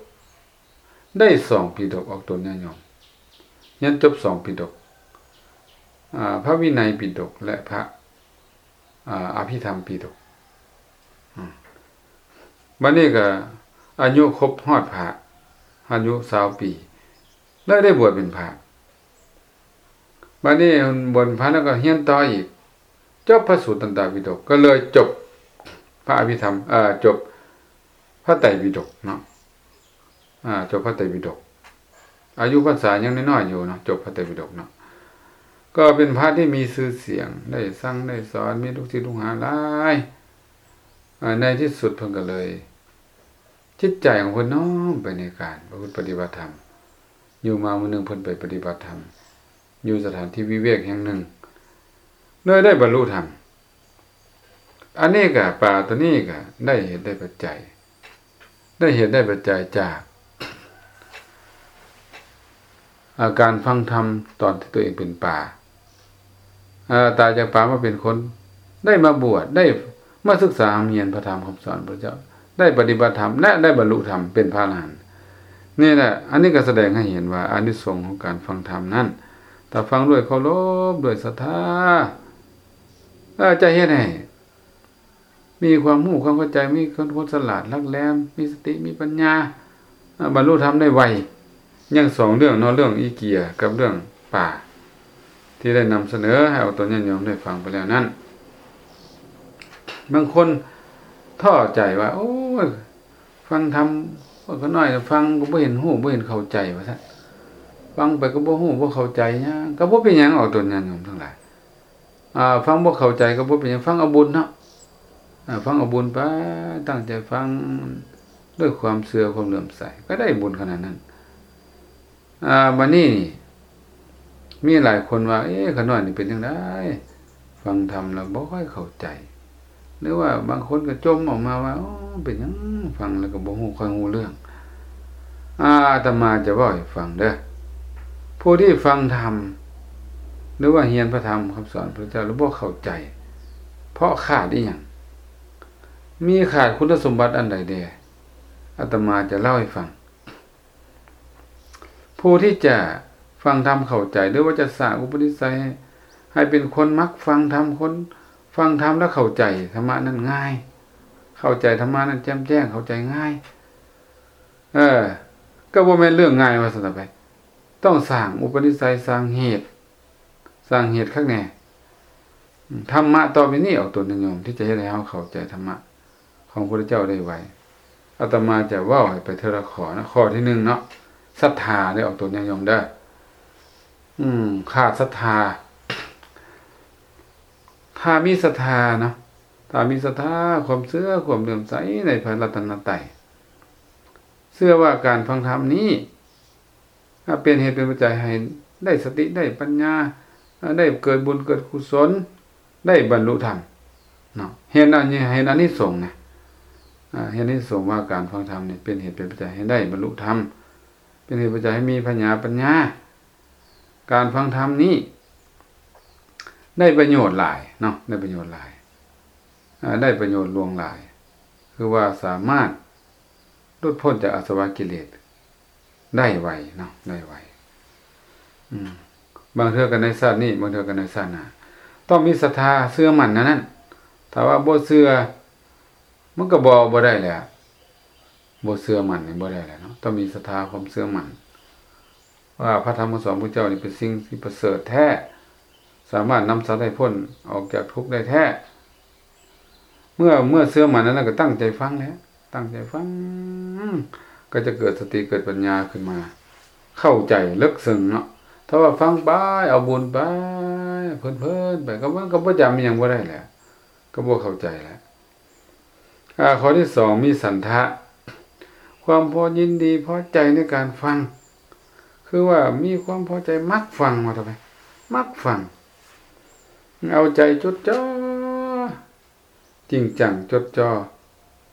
ໄດ້ສອງປີດົກ ອອກຕົນຍາດໂຍມ ຮຽນຈົບສອງປີດົກ ອາ ພະວິໄນປິດົກ ແລະ ພະ ອາ ອະພິທຳປິດົກ. ອາ ບັດນີ້ກໍອາຍຸຄົບຮອດພະ ອາຍຸຊາວປີ ເລີຍໄດ້ບວດເປັນພະ. ບັດນີ້ບວດເປັນພະແລ້ວກໍຮຽນຕໍ່ອີກ ຈົບພະສູດຕັນຕະປິດົກ ກໍເລີຍຈົບພະອະພິທຳ ເອີ ຈົບພະໄຕປິດົກເນາະ. ອາ ຈົບພະໄຕປິດົກ ອາຍຸພັນສາຍັງນ້ອຍໆຢູ່ເນາະ ຈົບພະໄຕປິດົກເນາະ. ກໍເປັນພະທີ່ມີຊື່ສຽງ ໄດ້ສັ່ງໄດ້ສອນ ມີລູກສິດລູກຫາຫຼາຍ. ອາ ໃນທີ່ສຸດເພິ່ນກໍເລີຍ ຈິດໃຈຂອງເພິ່ນນ້ອມໄປໃນການປະພຶດປະຕິບັດທຳ. ຢູ່ມາມື້ໜຶ່ງເພິ່ນໄປປະຕິບັດທຳ ຢູ່ສະຖານທີ່ວິເວກແຫ່ງໜຶ່ງ ເລີຍໄດ້ບັນລຸທຳ. ອັນນີ້ກະ ປາໂຕນີ້ກະໄດ້ເຫດໄດ້ປັດໄຈ ໄດ້ເຫດໄດ້ປັດໄຈຈາກ ອາ ການຟັງທຳຕອນທີ່ຕົວເອງເປັນປາ ອາ ຕາຍຈາກປາມາເປັນຄົນ ໄດ້ມາບວດ ໄດ້ມາສຶກສາຮ່ຳຮຽນພະທຳຄຳສອນພະເຈົ້າ ໄດ້ປະຕິບັດທຳ ແລະ ໄດ້ບັນລຸທຳເປັນພະອະລະຫັນ. ນີ້ແຫຼະ ອັນນີ້ກໍສະແດງໃຫ້ເຫັນວ່າອານິສົງຂອງການຟັງທຳນັ້ນ ຖ້າຟັງດ້ວຍເຄົາລົບ ດ້ວຍສັດທາ ເອີ ຈະເຮັດໃຫ້ ມີຄວາມຮູ້ຄວາມເຂົ້າໃຈ ມີຄວາມ ຄວາມສະຫຼາດຫຼັກແຫຼມ ມີສະຕິ ມີປັນຍາ ອາ ບັນລຸທຳໄດ້ໄວ. ຍັງສອງເລື່ອງເນາະ ເລື່ອງອີເກຍກັບເລື່ອງປາ ທີ່ໄດ້ນຳສະເໜີໃຫ້ອອກຕົນຍາດໂຍມໄດ້ຟັງໄປແລ້ວນັ້ນ. ບາງຄົນທໍ້ໃຈວ່າ ໂອ້ຍ ຟັງທຳ ຂ້ານ້ອຍຟັງກໍບໍ່ເຫັນຮູ້ ບໍ່ເຫັນເຂົ້າໃຈ ວ່າຊັ້ນ. ຟັງໄປກໍບໍ່ຮູ້ບໍ່ເຂົ້າໃຈຫຍັງ ກໍບໍ່ເປັນຫຍັງ ອອກຕົນຍາດໂຍມທັງຫຼາຍ. ອາ ຟັງບໍ່ເຂົ້າໃຈກໍບໍ່ເປັນຫຍັງ ຟັງເອົາບຸນເນາະ. ອາ ຟັງເອົາບຸນໄປ ຕັ້ງໃຈຟັງດ້ວຍຄວາມເຊື່ອ ຄວາມເຫຼື້ອມໃສ ກໍໄດ້ບຸນຂະໜາດນັ້ນ. ອາ ບາດນີ້ນີ້ ມີຫຼາຍຄົນວ່າ ເອ ຂ້ານ້ອຍນີ້ເປັນຈັ່ງໃດ ຟັງທຳແລ້ວບໍ່ຄ່ອຍເຂົ້າໃຈ ຫຼືວ່າບາງຄົນກໍຈົ່ມອອກມາວ່າ ໂອ້ ເປັນຫຍັງຟັງແລ້ວກໍບໍ່ຮູ້ ຄ່ອຍຮູ້ເລື່ອງ. ອາ ອາດຕະມາຈະເວົ້າໃຫ້ຟັງເດີ້ ຜູ້ທີ່ຟັງທຳ ຫຼືວ່າຮຽນພະທຳຄຳສອນພະເຈົ້າແລ້ວບໍ່ເຂົ້າໃຈ ເພາະຂາດອີຫຍັງ? ມີຂາດຄຸນສົມບັດອັນໃດແດ່? ອາດຕະມາຈະເລົ່າໃຫ້ຟັງ. ຜູ້ທີ່ຈະຟັງທຳເຂົ້າໃຈ ຫຼືວ່າຈະສ້າງອຸປະນິໄສໃຫ້ ໃຫ້ເປັນຄົນມັກຟັງທຳ ຄົນຟັງທຳແລ້ວເຂົ້າໃຈທຳມະນັ້ນງ່າຍ ເຂົ້າໃຈທຳມະນັ້ນແຈ່ມແຈ້ງ ເຂົ້າໃຈງ່າຍ ເອີ ກໍບໍ່ແມ່ນເລື່ອງງ່າຍວ່າຊັ້ນໄປ. ຕ້ອງສ້າງອຸປະນິໄສ ສ້າງເຫດ ສ້າງເຫດຄັກແນ່. ທຳມະຕໍ່ໄປນີ້ ອອກຕົນຍາດໂຍມ ທີ່ຈະເຮັດໃຫ້ເຮົາເຂົ້າໃຈທຳມະ ຂອງພະພຸດທະເຈົ້າໄດ້ໄວ. ອາດຕະມາຈະເວົ້າໃຫ້ໄປເທື່ອລະຂໍ້ເນາະ. ຂໍ້ທີໜຶ່ງເນາະ ສັດທາເດີ້ ອອກຕົນຍາດໂຍມເດີ້. ອືມ ຂາດສັດທາ. ຖ້າມີສັດທາເນາະ ຖ້າມີສັດທາ ຄວາມເຊື່ອ ຄວາມເຫຼື້ອມໃສໃນພະລັດຕະນະໄຕ ເຊື່ອວ່າການຟັງທຳນີ້ ອາ ເປັນເຫດເປັນປັດໄຈໃຫ້ໄດ້ສະຕິ ໄດ້ປັນຍາ ອາ ໄດ້ເກີດບຸນເກີດກຸສົນ ໄດ້ບັນລຸທຳເນາະ. ເຫັນອັນນີ້ ເຫັນອານິສົງນະ ອາ ເຫັນອານິສົງວ່າການຟັງທຳນີ້ເປັນເຫດເປັນປັດໄຈໃຫ້ໄດ້ບັນລຸທຳ ເປັນເຫດປັດໄຈໃຫ້ມີພະຍາປັນຍາ. ການຟັງທຳນີ້ໄດ້ປະໂຫຍດຫຼາຍເນາະ ໄດ້ປະໂຫຍດຫຼາຍ ອາ ໄດ້ປະໂຫຍດຫຼວງຫຼາຍ ຄືວ່າສາມາດ ຫຼຸດພົ້ນຈາກອາສະວະກິເລດໄດ້ໄວເນາະ ໄດ້ໄວ. ອືມ ບາງເທື່ອກໍໃນຊາດນີ້ ບາງເທື່ອກໍໃນຊາດໜ້າ ຕ້ອງມີສັດທາເຊື່ອໝັ້ນແນວນັ້ນ. ຖ້າວ່າບໍ່ເຊື່ອ ມັນກໍບໍ່ ບໍ່ໄດ້ແຫຼະ ບໍ່ເຊື່ອໝັ້ນນີ້ບໍ່ໄດ້ແຫຼະເນາະ. ຕ້ອງມີສັດທາ ຄວາມເຊື່ອໝັ້ນ ວ່າພະທຳຄຳສອນຂອງພະເຈົ້ານີ້ເປັນສິ່ງທີ່ປະເສີດແທ້ ສາມາດນຳສັດໃຫ້ພົ້ນອອກຈາກທຸກໄດ້ແທ້. ເມື່ອ ເມື່ອເຊື່ອໝັ້ນອັນນັ້ນ ກໍຕັ້ງໃຈຟັງແຫຼະ ຕັ້ງໃຈຟັງ ກໍຈະເກີດສະຕິເກີດປັນຍາຂຶ້ນມາ ເຂົ້າໃຈເລິກເຊິ່ງເນາະ. ຖ້າວ່າຟັງໄປ ເອົາບຸນໄປ ເພີນໆໄປ ກໍມັນກໍບໍ່ຈຳອີ່ຫຍັງບໍ່ໄດ້ແຫຼະ ກໍບໍ່ເຂົ້າໃຈແຫຼະ. ອາ ຂໍ້ທີສອງ ມີສັນທະ ຄວາມພໍຍິນດີພໍໃຈໃນການຟັງ ຄືວ່າມີຄວາມພໍໃຈ ມັກຟັງ ວ່າຕໍ່ໄປ ມັກຟັງ ເອົາໃຈຈົດຈ່ອ ຈິງຈັງຈົດຈ່ອ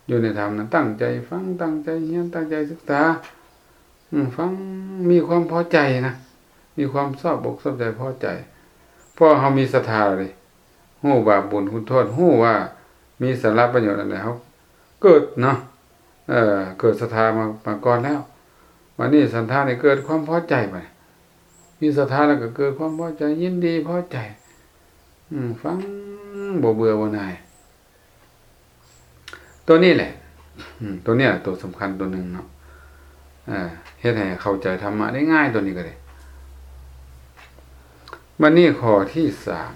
ຢູ່ໃນທຳນັ້ນ ຕັ້ງໃຈຟັງ ຕັ້ງໃຈຮຽນ ຕັ້ງໃຈສຶກສາ ອືມ ຟັງ ມີຄວາມພໍໃຈນະ ມີຄວາມຊອບອົກຊອບໃຈ ພໍໃຈ ເພາະເຮົາມີສັດທາເດ ຮູ້ບາບບຸນຄຸນໂທດ ຮູ້ວ່າມີສາລະປະໂຫຍດອັນໃດ ເຮົາເກີດເນາະ ເກີດສັດທາມາ ມາກ່ອນແລ້ວ. ບາດນີ້ສັນທານີ້ເກີດຄວາມພໍໃຈ ບາດນີ້ມີສັດທາແລ້ວກໍເກີດຄວາມພໍໃຈ ຍິນດີພໍໃຈ ອືມ ຟັງບໍ່ເບື່ອບໍ່ໜ່າຍ. ຕົວນີ້ແຫຼະ ອືມ ຕົວນີ້ແຫຼະຕົວສຳຄັນຕົວໜຶ່ງເນາະ ເຮັດໃຫ້ເຂົ້າໃຈທຳມະໄດ້ງ່າຍ ຕົວນີ້ກໍໄດ້. ບັດນີ້ຂໍ້ທີສາມ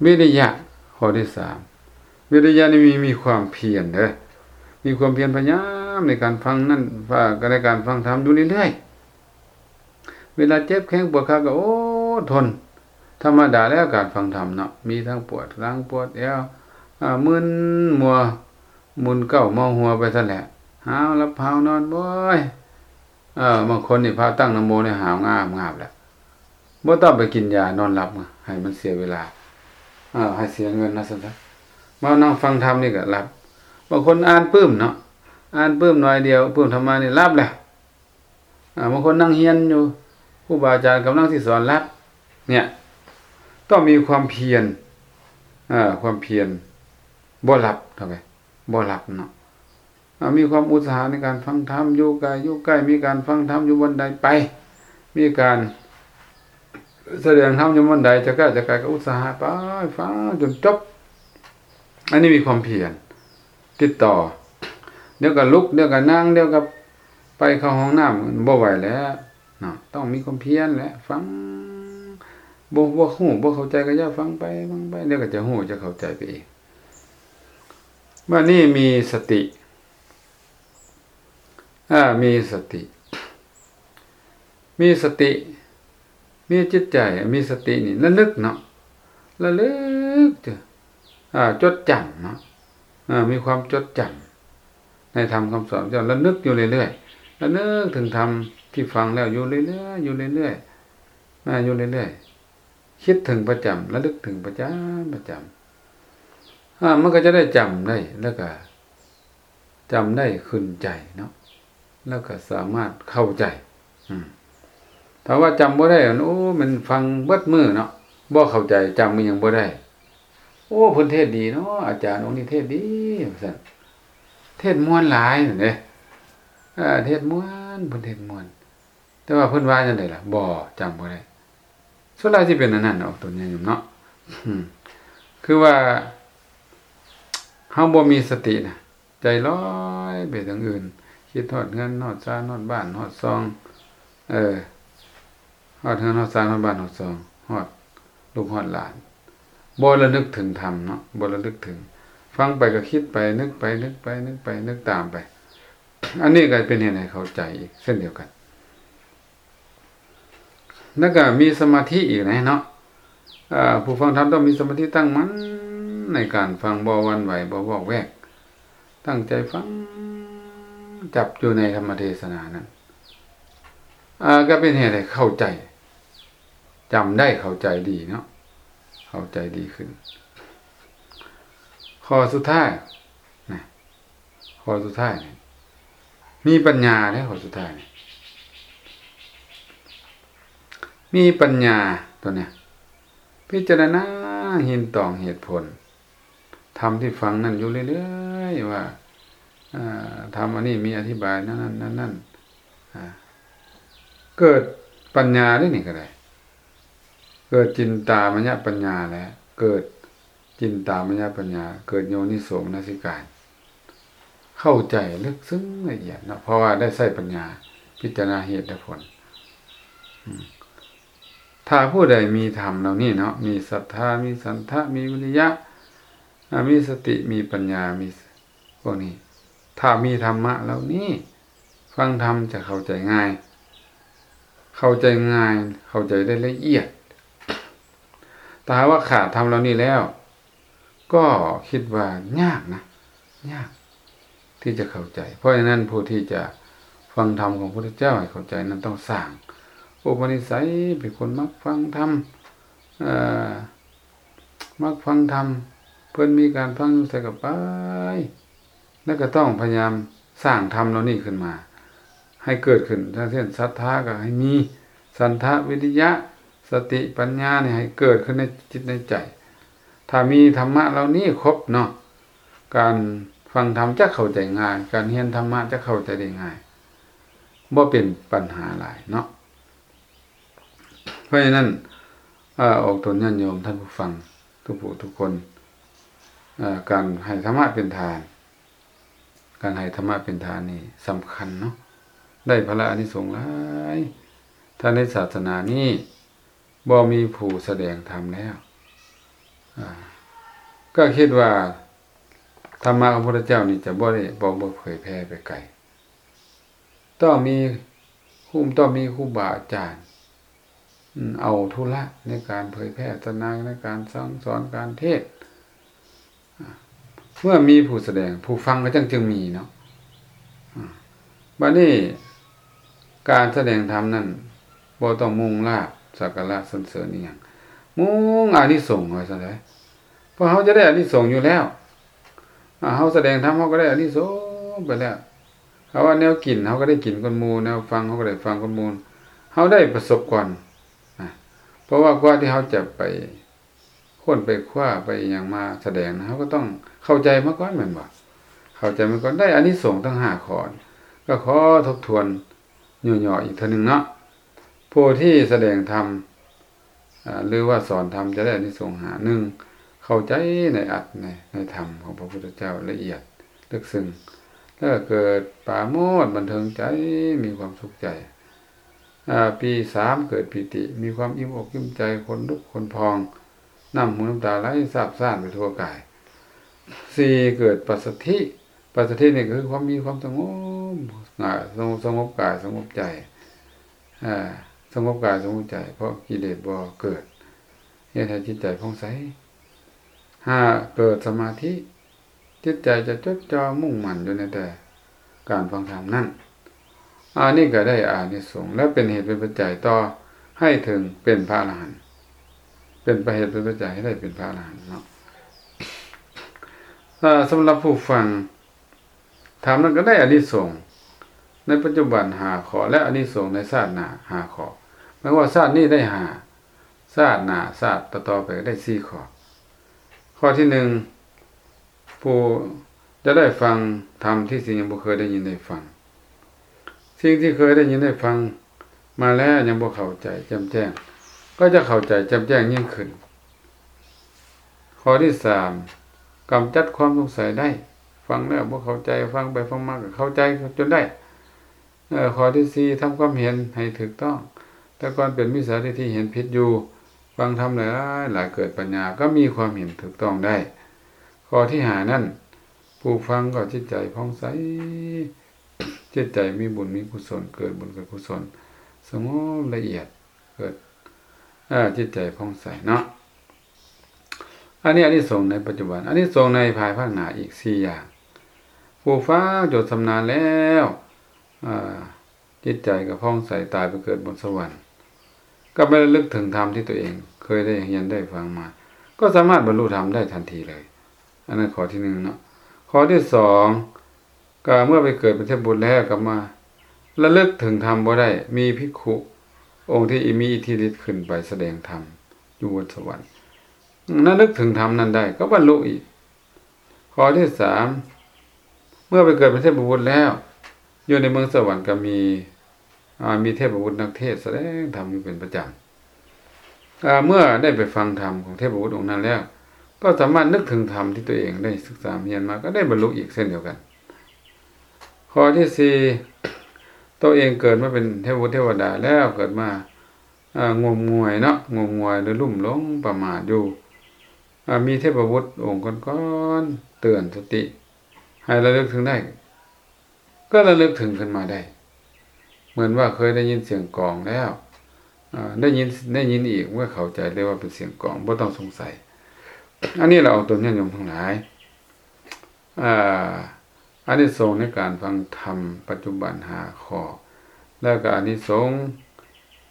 ວິລິຍະ ຂໍ້ທີສາມ ວິລິຍະນີ້ມີ ມີຄວາມພຽນເດີ້ ມີຄວາມພຽນພະຍາຍາມໃນການຟັງນັ້ນ ໃນການຟັງທຳຢູ່ເລື້ອຍໆ. ເວລາເຈັບແຂ້ງປວດຂາກໍ ໂອ້ ດທົນ. ທຳມະດາແລ້ວການຟັງທຳເນາະ ມີທັງປວດຫຼັງປວດແອວ ອາ ມຶນມົວ ມຶນເກົ້າເມົາຫົວໄປຊັ້ນແຫຼະ ຫາວຫຼັບຫາວນອນ ໂອ້ຍ ເອີ ບາງຄົນນີ້ພາຕັ້ງນະໂມນີ້ຫາວງາບໆແຫຼະ ບໍ່ຕ້ອງໄປກິນຢານອນຫຼັບ ໃຫ້ມັນເສຍເວລາ ເອີ ໃຫ້ເສຍເງິນວ່າຊັ້ນຊະ. ມານັ່ງຟັງທຳນີ້ກໍຫຼັບ. ບາງຄົນອ່ານປຶ້ມເນາະ ອ່ານປຶ້ມໜ້ອຍດຽວ ປຶ້ມທຳມະນີ້ຫຼັບແລ້ວ. ອາ ບາງຄົນນັ່ງຮຽນຢູ່ ຄູບາອາຈານກຳລັງຊິສອນຫຼັບ ເນຍ ຕ້ອງມີຄວາມພຽນ ເອີ ຄວາມພຽນ ບໍ່ຫຼັບເທົ່າໃດ ບໍ່ຫຼັບເນາະ. ອາ ມີຄວາມອຸດສາຫະໃນການຟັງທຳ ຢູ່ໃກ້ ຢູ່ໃກ້ ມີການຟັງທຳຢູ່ບ່ອນໃດໄປ ມີການສະແດງທຳຢູ່ບ່ອນໃດ ຈະກະ ຈະກະ ກໍອຸດສາຫະໄປ ຟັງຈົນຈົບ. ອັນນີ້ມີຄວາມພຽນ ຕິດຕໍ່ ດຽວກໍລຸກ ດຽວກໍນັ່ງ ດຽວກໍໄປເຂົ້າຫ້ອງນ້ຳ ບໍ່ໄຫວແລ້ວເນາະ. ຕ້ອງມີຄວາມພຽນແຫຼະ ຟັງ ບໍ່ ບໍ່ຮູ້ ບໍ່ເຂົ້າໃຈກໍຢ່າຟັງໄປ ຟັງໄປ ດຽວກໍຈະຮູ້ ຈະເຂົ້າໃຈໄປເອງ. ບາດນີ້ມີສະຕິ ອາ ມີສະຕິ ມີສະຕິ ມີຈິດໃຈ ມີສະຕິນີ້ລະນຶກເນາະ ລະລຶກ ອາ ຈົດຈຳເນາະ ອາ ມີຄວາມຈົດຈຳໃນທຳຄຳສອນເຈົ້າ ລະນຶກຢູ່ເລື້ອຍໆ ລະນຶກເຖິງທຳທີ່ຟັງແລ້ວຢູ່ເລື້ອຍໆ ຢູ່ເລື້ອຍໆ ອາ ຢູ່ເລື້ອຍໆ ຄິດເຖິງປະຈຳ ລະລຶກເຖິງປະຈຳ ປະຈຳ ອາ ມັນກໍຈະໄດ້ຈຳໄດ້ ແລ້ວກໍຈຳໄດ້ຂຶ້ນໃຈເນາະ ແລ້ວກໍສາມາດເຂົ້າໃຈ. ອືມ ຖ້າວ່າຈຳບໍ່ໄດ້ ໂອ້ ແມ່ນຟັງເບິດມື້ເນາະ ບໍ່ເຂົ້າໃຈ ຈຳອີ່ຫຍັງບໍ່ໄດ້. ໂອ້ ເພິ່ນເທດດີເນາະ ອາຈານອົງນີ້ເທດດີ ວ່າຊັ້ນ ເທດມ່ວນຫຼາຍນັ້ນເດ້ ເອີ ເທດມ່ວນ ເພິ່ນເທດມ່ວນ. ແຕ່ວ່າເພິ່ນວ່າຈັ່ງໃດລະ? ບໍ່ ຈຳບໍ່ໄດ້. ສ່ວນຫຼາຍຊິເປັນອັນນັ້ນອອກຕົນຍາດໂຍມເນາະ. ອືມ ຄືວ່າເຮົາບໍ່ມີສະຕິນະ ໃຈລອຍໄປທາງອື່ນ ຄິດຮອດເຮືອນ ຮອດຊານ ຮອດບ້ານ ຮອດຊ່ອງ ເອີ ຮອດເຮືອນ ຮອດຊານ ຮອດບ້ານ ຮອດຊ່ອງ ຮອດລູກຮອດຫຼານ ບໍ່ລະນຶກເຖິງທຳເນາະ ບໍ່ລະນຶກເຖິງ ຟັງໄປກໍຄິດໄປ ນຶກໄປ ນຶກໄປ ນຶກໄປ ນຶກຕາມໄປ. ອັນນີ້ກໍເປັນເຫດໃຫ້ເຂົ້າໃຈອີກເຊັ່ນດຽວກັນ. ແລ້ວກໍມີສະມາທິອີກນະເນາະ ເອີ ຜູ້ຟັງທຳຕ້ອງມີສະມາທິຕັ້ງໝັ້ນໃນການຟັງ ບໍ່ຫວັ່ນໄຫວ ບໍ່ວອກແວກ ຕັ້ງໃຈຟັງ ຈັບຢູ່ໃນທຳມະເທສະນານັ້ນ ເອີ ກໍເປັນເຫດໃຫ້ເຂົ້າໃຈ ຈຳໄດ້ ເຂົ້າໃຈດີເນາະ ເຂົ້າໃຈດີຂຶ້ນ. ຂໍ້ສຸດທ້າຍນະ ຂໍ້ສຸດທ້າຍນີ້ ມີປັນຍາເດ້ ຂໍ້ສຸດທ້າຍນີ້ ມີປັນຍາຕົວເນີ້ຍ ພິຈາລະນາເຫັນຕອງເຫດຜົນ ທຳທີ່ຟັງນັ້ນຢູ່ເລື້ອຍໆ ວ່າ ເອີ ທຳອັນນີ້ມີອະທິບາຍແນວນັ້ນແນວນັ້ນ ອາ ເກີດປັນຍາເດ້ນີ້ກໍໄດ້ ເກີດຈິນຕາມະຍະປັນຍາແຫຼະ ເກີດຈິນຕາມະຍະປັນຍາ ເກີດໂຍນິໂສມະນະສິການ ເຂົ້າໃຈເລິກເຊິ່ງລະອຽດເນາະ ເພາະວ່າໄດ້ໃຊ້ປັນຍາພິຈາລະນາເຫດແລະຜົນ. ອາ ຖ້າຜູ້ໃດມີທຳເຫຼົ່ານີ້ເນາະ ມີສັດທາ ມີສັນທະ ມີວິລິຍະ ອາ ມີສະຕິ ມີປັນຍາ ມີພວກນີ້ ຖ້າມີທຳມະເຫຼົ່ານີ້ ຟັງທຳຈະເຂົ້າໃຈງ່າຍ ເຂົ້າໃຈງ່າຍ ເຂົ້າໃຈໄດ້ລະອຽດ. ຖ້າຫາກວ່າຂາດທຳເຫຼົ່ານີ້ແລ້ວ ກໍຄິດວ່າຍາກນະ ຍາກທີ່ຈະເຂົ້າໃຈ. ເພາະສະນັ້ນ ຜູ້ທີ່ຈະຟັງທຳຂອງພະພຸດທະເຈົ້າໃຫ້ເຂົ້າໃຈນັ້ນ ຕ້ອງສ້າງອຸປະນິໄສເປັນຄົນມັກຟັງທຳ ເອີ ມັກຟັງທຳ ເພິ່ນມີການຟັງຢູ່ໃສກໍໄປ ແລ້ວກໍຕ້ອງພະຍາຍາມສ້າງທຳເຫຼົ່ານີ້ຂຶ້ນມາ ໃຫ້ເກີດຂຶ້ນ ເຊັ່ນ ສັດທາກໍໃຫ້ມີ ສັນທະ ວິລິຍະ ສະຕິ ປັນຍານີ້ໃຫ້ເກີດຂຶ້ນໃນຈິດໃນໃຈ. ຖ້າມີທຳມະເຫຼົ່ານີ້ຄົບເນາະ ການຟັງທຳຈະເຂົ້າໃຈງ່າຍ ການຮຽນທຳມະຈະເຂົ້າໃຈໄດ້ງ່າຍ ບໍ່ເປັນປັນຫາຫຼາຍເນາະ. ເພາະສະນັ້ນ ອາ ອອກຕົນຍາດໂຍມທ່ານຜູ້ຟັງທຸກຜູ້ທຸກຄົນ ອາ ການໃຫ້ທຳມະເປັນທານ ການໃຫ້ທຳມະເປັນທານນີ້ສຳຄັນເນາະ ໄດ້ພະລະອານິສົງຫຼາຍ. ຖ້າໃນສາສະໜານີ້ບໍ່ມີຜູ້ສະແດງທຳແລ້ວ ອາ ກໍຄິດວ່າທຳມະຂອງພະພຸດທະເຈົ້ານີ້ຈະບໍ່ໄດ້ ບໍ່ ບໍ່ເຜີຍແຜ່ໄປໄກ. ຕ້ອງມີຄູ ຕ້ອງມີຄູບາອາຈານ ເອົາທຸລະໃນການເຜີຍແຜ່ສາສະໜາ ໃນການສັ່ງສອນ ການເທດ. ເມື່ອມີຜູ້ສະແດງ ຜູ້ຟັງກໍຈັ່ງ ຈຶ່ງມີເນາະ. ບາດນີ້ ການສະແດງທຳນັ້ນ ບໍ່ຕ້ອງມຸ່ງລາບສັກກາລະສັນເສີນອີ່ຫຍັງ, ມຸ່ງອານິສົງວ່າຊັ້ນເດ. ເພາະເຮົາຈະໄດ້ອານິສົງຢູ່ແລ້ວ. ອາ ເຮົາສະແດງທຳ ເຮົາກໍໄດ້ອານິສົງໄປແລ້ວ. ເຮົາວ່າແນວກິນ ເຮົາກໍໄດ້ກິນກ່ອນໝູ່, ແນວຟັງ ເຮົາກໍໄດ້ຟັງກ່ອນໝູ່, ເຮົາໄດ້ປະສົບກ່ອນ. ອາ ເພາະວ່າກວ່າທີ່ເຮົາຈະໄປຄົ້ນໄປຄວ້າໄປອີ່ຫຍັງມາສະແດງນະ ເຮົາກໍຕ້ອງເຂົ້າໃຈມາກ່ອນແມ່ນບໍ່? ເຂົ້າໃຈມາກ່ອນ ໄດ້ອານິສົງທັງຫ້າຂໍ້ ກໍຂໍທົບທວນຫຍໍ້ໆອີກເທື່ອໜຶ່ງເນາະ. ຜູ້ທີ່ສະແດງທຳ ອາ ຫຼືວ່າສອນທຳຈະໄດ້ອານິສົງຫ້າ. ໜຶ່ງ ເຂົ້າໃຈໃນອັດ ໃນ ໃນທຳຂອງພະພຸດທະເຈົ້າລະອຽດເລິກເຊິ່ງ ແລ້ວກໍເກີດປາໂມດບັນເທີງໃຈ ມີຄວາມສຸກໃຈ. ອາ ປີສາມ ເກີດປີຕິ ມີຄວາມອີ່ມອົກອີ່ມໃຈ ຂົນລຸກຂົນພອງ ນ້ຳຫູນ້ຳຕາໄຫຼຊາບຊານໄປທົ່ວກາຍ. ສີ່ ເກີດປັດສະທິ ປັດສະທິນີ້ກໍຄືຄວາມມີຄວາມສະຫງົບ ສະຫງົບ ສະຫງົບກາຍສະຫງົບໃຈ ອາ ສະຫງົບກາຍສະຫງົບໃຈ ເພາະກິເລດບໍ່ເກີດ ເຮັດໃຫ້ຈິດໃຈຜ່ອງໃສ. ຫ້າ ເກີດສະມາທິ ຈິດໃຈຈະຈົດຈ່ອງມຸ່ງໝັ້ນຢູ່ໃນແຕ່ການຟັງທຳນັ້ນ. ອັນນີ້ກໍໄດ້ອານິສົງ ແລະ ເປັນເຫດເປັນປັດໄຈຕໍ່ໃຫ້ເຖິງເປັນພະອະລະຫັນ ເປັນປະເຫດເປັນປັດໄຈໃຫ້ໄດ້ເປັນພະອະລະຫັນເນາະ. ອາ ສຳລັບຜູ້ຟັງທຳນັ້ນກໍໄດ້ອານິສົງໃນປັດຈຸບັນຫ້າຂໍ້ ແລະ ອານິສົງໃນຊາດໜ້າຫ້າຂໍ້. ໝາຍຄວາມວ່າຊາດນີ້ໄດ້ຫ້າ ຊາດໜ້າ ຊາດຕໍ່ໆໄປກໍໄດ້ສີ່ຂໍ້. ຂໍ້ທີໜຶ່ງ ຜູ້ຈະໄດ້ຟັງທຳທີ່ສິ່ງຍັງບໍ່ເຄີຍໄດ້ຍິນໄດ້ຟັງ. ສິ່ງທີ່ເຄີຍໄດ້ຍິນໄດ້ຟັງມາແລ້ວຍັງບໍ່ເຂົ້າໃຈແຈ່ມແຈ້ງ ກໍຈະເຂົ້າໃຈແຈ່ມແຈ້ງຍິ່ງຂຶ້ນ. ຂໍ້ທີສາມ ກຳຈັດຄວາມສົງໄສໄດ້. ຟັງແລ້ວບໍ່ເຂົ້າໃຈ ຟັງໄປຟັງມາກໍເຂົ້າໃຈຈົນໄດ້. ເອີ ຂໍ້ທີສີ່ ທຳຄວາມເຫັນໃຫ້ຖືກຕ້ອງ. ແຕ່ກ່ອນເປັນມິດສາທິດຖິ ເຫັນຜິດຢູ່ ຟັງທຳຫຼາຍໆ ເກີດປັນຍາ ກໍມີຄວາມເຫັນຖືກຕ້ອງໄດ້. ຂໍ້ທີຫ້ານັ້ນ ຜູ້ຟັງກໍຈິດໃຈຜ່ອງໃສ ຈິດໃຈມີບຸນມີກຸສົນ ເກີດບຸນເກີດກຸສົນ ສະຫງົບລະອຽດ ເກີດ ເອີ ຈິດໃຈຜ່ອງໃສເນາະ. ອັນນີ້ອານິສົງໃນປັດຈຸບັນ ອານິສົງໃນພາຍພາກໜ້າອີກສີ່ຢ່າງ. ຜູ້ຟັງຈົນຊຳນານແລ້ວ ອາ ຈິດໃຈກໍຜ່ອງໃສ ຕາຍໄປເກີດບົນສະຫວັນ ກໍໄປລະລຶກເຖິງທຳທີ່ຕົວເອງເຄີຍໄດ້ຮຽນໄດ້ຟັງມາ ກໍສາມາດບັນລຸທຳໄດ້ທັນທີເລີຍ. ອັນນັ້ນຂໍ້ທີໜຶ່ງເນາະ. ຂໍ້ທີສອງ ກໍເມື່ອໄປເກີດເປັນເທບບຸດແລ້ວ ກໍມາລະລຶກເຖິງທຳບໍ່ໄດ້ ມີພິກຂຸອົງທີ່ມີອິດທິລິດຂຶ້ນໄປສະແດງທຳຢູ່ບົນສະຫວັນ ລະນຶກເຖິງທຳນັ້ນໄດ້ກໍບັນລຸອີກ. ຂໍ້ທີສາມ ເມື່ອໄປເກີດເປັນເທບບຸດແລ້ວ ຢູ່ໃນເມືອງສະຫວັນກໍມີ ອາ ມີເທບບຸດນັກເທດສະແດງທຳຢູ່ເປັນປະຈຳ. ອາ ເມື່ອໄດ້ໄປຟັງທຳຂອງເທບບຸດອົງນັ້ນແລ້ວ ກໍສາມາດນຶກເຖິງທຳທີ່ຕົວເອງໄດ້ສຶກສາຮຽນມາ ກໍໄດ້ບັນລຸອີກເຊັ່ນດຽວກັນ. ຂໍ້ທີສີ່ ຕົວເອງເກີດມາເປັນເທບບຸດເທວະດາແລ້ວ ເກີດມາ ອາ ງົມງວາຍເນາະ ງົມງວາຍ ຫຼື ລຸ່ມຫຼົງປະໝາດຢູ່ ອາ ມີເທບບຸດອົງກ່ອນໆເຕືອນສະຕິໃຫ້ລະລຶກເຖິງໄດ້ ກໍລະລຶກເຖິງຂຶ້ນມາໄດ້ ເໝືອນວ່າເຄີຍໄດ້ຍິນສຽງກອງແລ້ວ ອາ ໄດ້ຍິນ ໄດ້ຍິນອີກ ເມື່ອເຂົ້າໃຈເລີຍວ່າເປັນສຽງກອງ ບໍ່ຕ້ອງສົງໄສ. ອັນນີ້ລະອອກຕົນຍາດໂຍມທັງຫຼາຍ ອາ ອານິສົງໃນການຟັງທຳປັດຈຸບັນຫ້າຂໍ້ ແລ້ວກໍອານິສົງ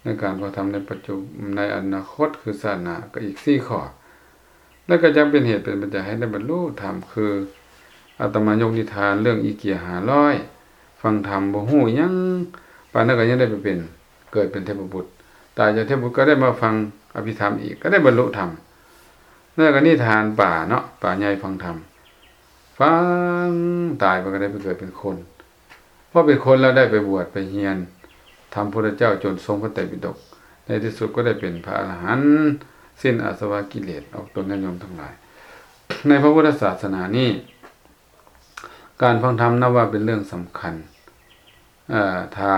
ໃນການຟັງທຳໃນປັດຈຸ ໃນອະນາຄົດ ຄືຊາດໜ້າ ກໍອີກສີ່ຂໍ້ ແລ້ວກໍຈະເປັນເຫດເປັນປັດໄຈໃຫ້ໄດ້ບັນລຸທຳ ຄືອາດຕະມາຍົກນິທານເລື່ອງອີເກຍຫ້າຮ້ອຍ ຟັງທຳບໍ່ຮູ້ຫຍັງ ປານນັ້ນກໍຍັງໄດ້ໄປເປັນ ເກີດເປັນເທບບຸດ ຕາຍຈາກເທບບຸດກໍໄດ້ມາຟັງອະພິທຳອີກ ກໍໄດ້ບັນລຸທຳ. ແລ້ວກໍນິທານປາເນາະ ປາໃຫຍ່ຟັງທຳ ຟັງ ຕາຍໄປກໍໄດ້ໄປເກີດເປັນຄົນ ພໍເປັນຄົນແລ້ວໄດ້ໄປບວດໄປຮຽນທຳພຸດທະເຈົ້າຈົນຊົງພະໄຕປິດົກ ໃນທີ່ສຸດກໍໄດ້ເປັນພະອະລະຫັນ ສິ້ນອາສະວະກິເລດ ອອກຕົນຍາດໂຍມທັງຫຼາຍ. ໃນພະພຸດທະສາສະໜານີ້ ການຟັງທຳນັບວ່າເປັນເລື່ອງສຳຄັນ ເອີ ຖ້າ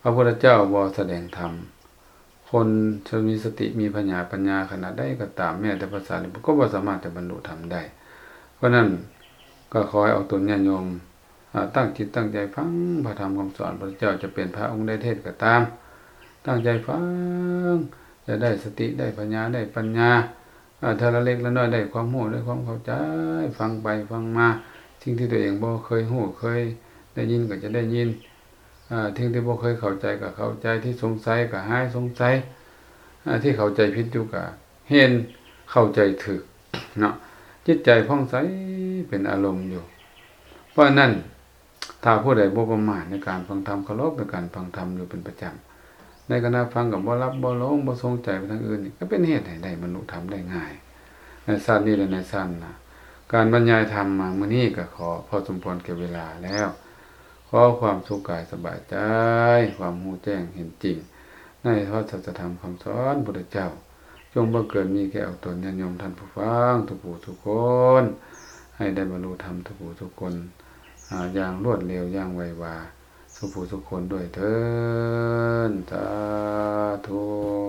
ພະພຸດທະເຈົ້າບໍ່ສະແດງທຳ ຄົນທີ່ມີສະຕິມີພະຍາປັນຍາຂະໜາດໃດກໍຕາມ ແມ້ແຕ່ພະສາລີບຸດກໍບໍ່ສາມາດຈະບັນລຸທຳໄດ້. ເພາະນັ້ນກໍຂໍໃຫ້ອອກຕົນຍາດໂຍມ ອາ ຕັ້ງຈິດຕັ້ງໃຈຟັງພະທຳຄຳສອນພະພຸດທະເຈົ້າ ຈະເປັນພະອົງໃດເທດກໍຕາມ ຕັ້ງໃຈຟັງ ຈະໄດ້ສະຕິ ໄດ້ປັນຍາ ໄດ້ປັນຍາ ເອີ ເທື່ອລະເລັກລະນ້ອຍ ໄດ້ຄວາມຮູ້ ໄດ້ຄວາມເຂົ້າໃຈ ຟັງໄປຟັງມາ ສິ່ງທີ່ຕົວເອງບໍ່ເຄີຍຮູ້ເຄີຍໄດ້ຍິນກໍຈະໄດ້ຍິນ ເອີ ສິ່ງທີ່ບໍ່ເຄີຍເຂົ້າໃຈກໍເຂົ້າໃຈ ທີ່ສົງໄສກໍຫາຍສົງໄສ ເອີ ທີ່ເຂົ້າໃຈຜິດຢູ່ກໍເຫັນເຂົ້າໃຈຖືກເນາະ ຈິດໃຈຜ່ອງໃສເປັນອາລົມຢູ່. ເພາະນັ້ນ ຖ້າຜູ້ໃດບໍ່ປະໝາດໃນການຟັງທຳ ເຄົາລົບໃນການຟັງທຳຢູ່ເປັນປະຈຳ ໃນຂະນະຟັງກໍບໍ່ຫຼັບບໍ່ຫຼົງ ບໍ່ສົງໄຈໄປທາງອື່ນນີ້ ກໍເປັນເຫດໃຫ້ໄດ້ບັນລຸທຳໄດ້ງ່າຍ ໃນຊາດນີ້ ແລະ ໃນຊາດໜ້າ. ການບັນຍາຍທຳມາມື້ນີ້ກໍຂໍພໍສົມຄວນແກ່ເວລາແລ້ວ ຂໍຄວາມສຸກກາຍສະບາຍໃຈ ຄວາມຮູ້ແຈ້ງເຫັນຈິງ ໃນພະສັດທະທຳຄຳສອນພຸດທະເຈົ້າ ຈົ່ງບັງເກີດມີແກ່ອອກຕົນຍາດໂຍມທ່ານຜູ້ຟັງທຸກຜູ້ທຸກຄົນ ໃຫ້ໄດ້ບັນລຸທຳທຸກຜູ້ທຸກຄົນ ອາ ຢ່າງລວດເລັວ ຢ່າງໄວວາ ທຸກຜູ້ທຸກຄົນດ້ວຍເທີ້ນ ສາທຸ.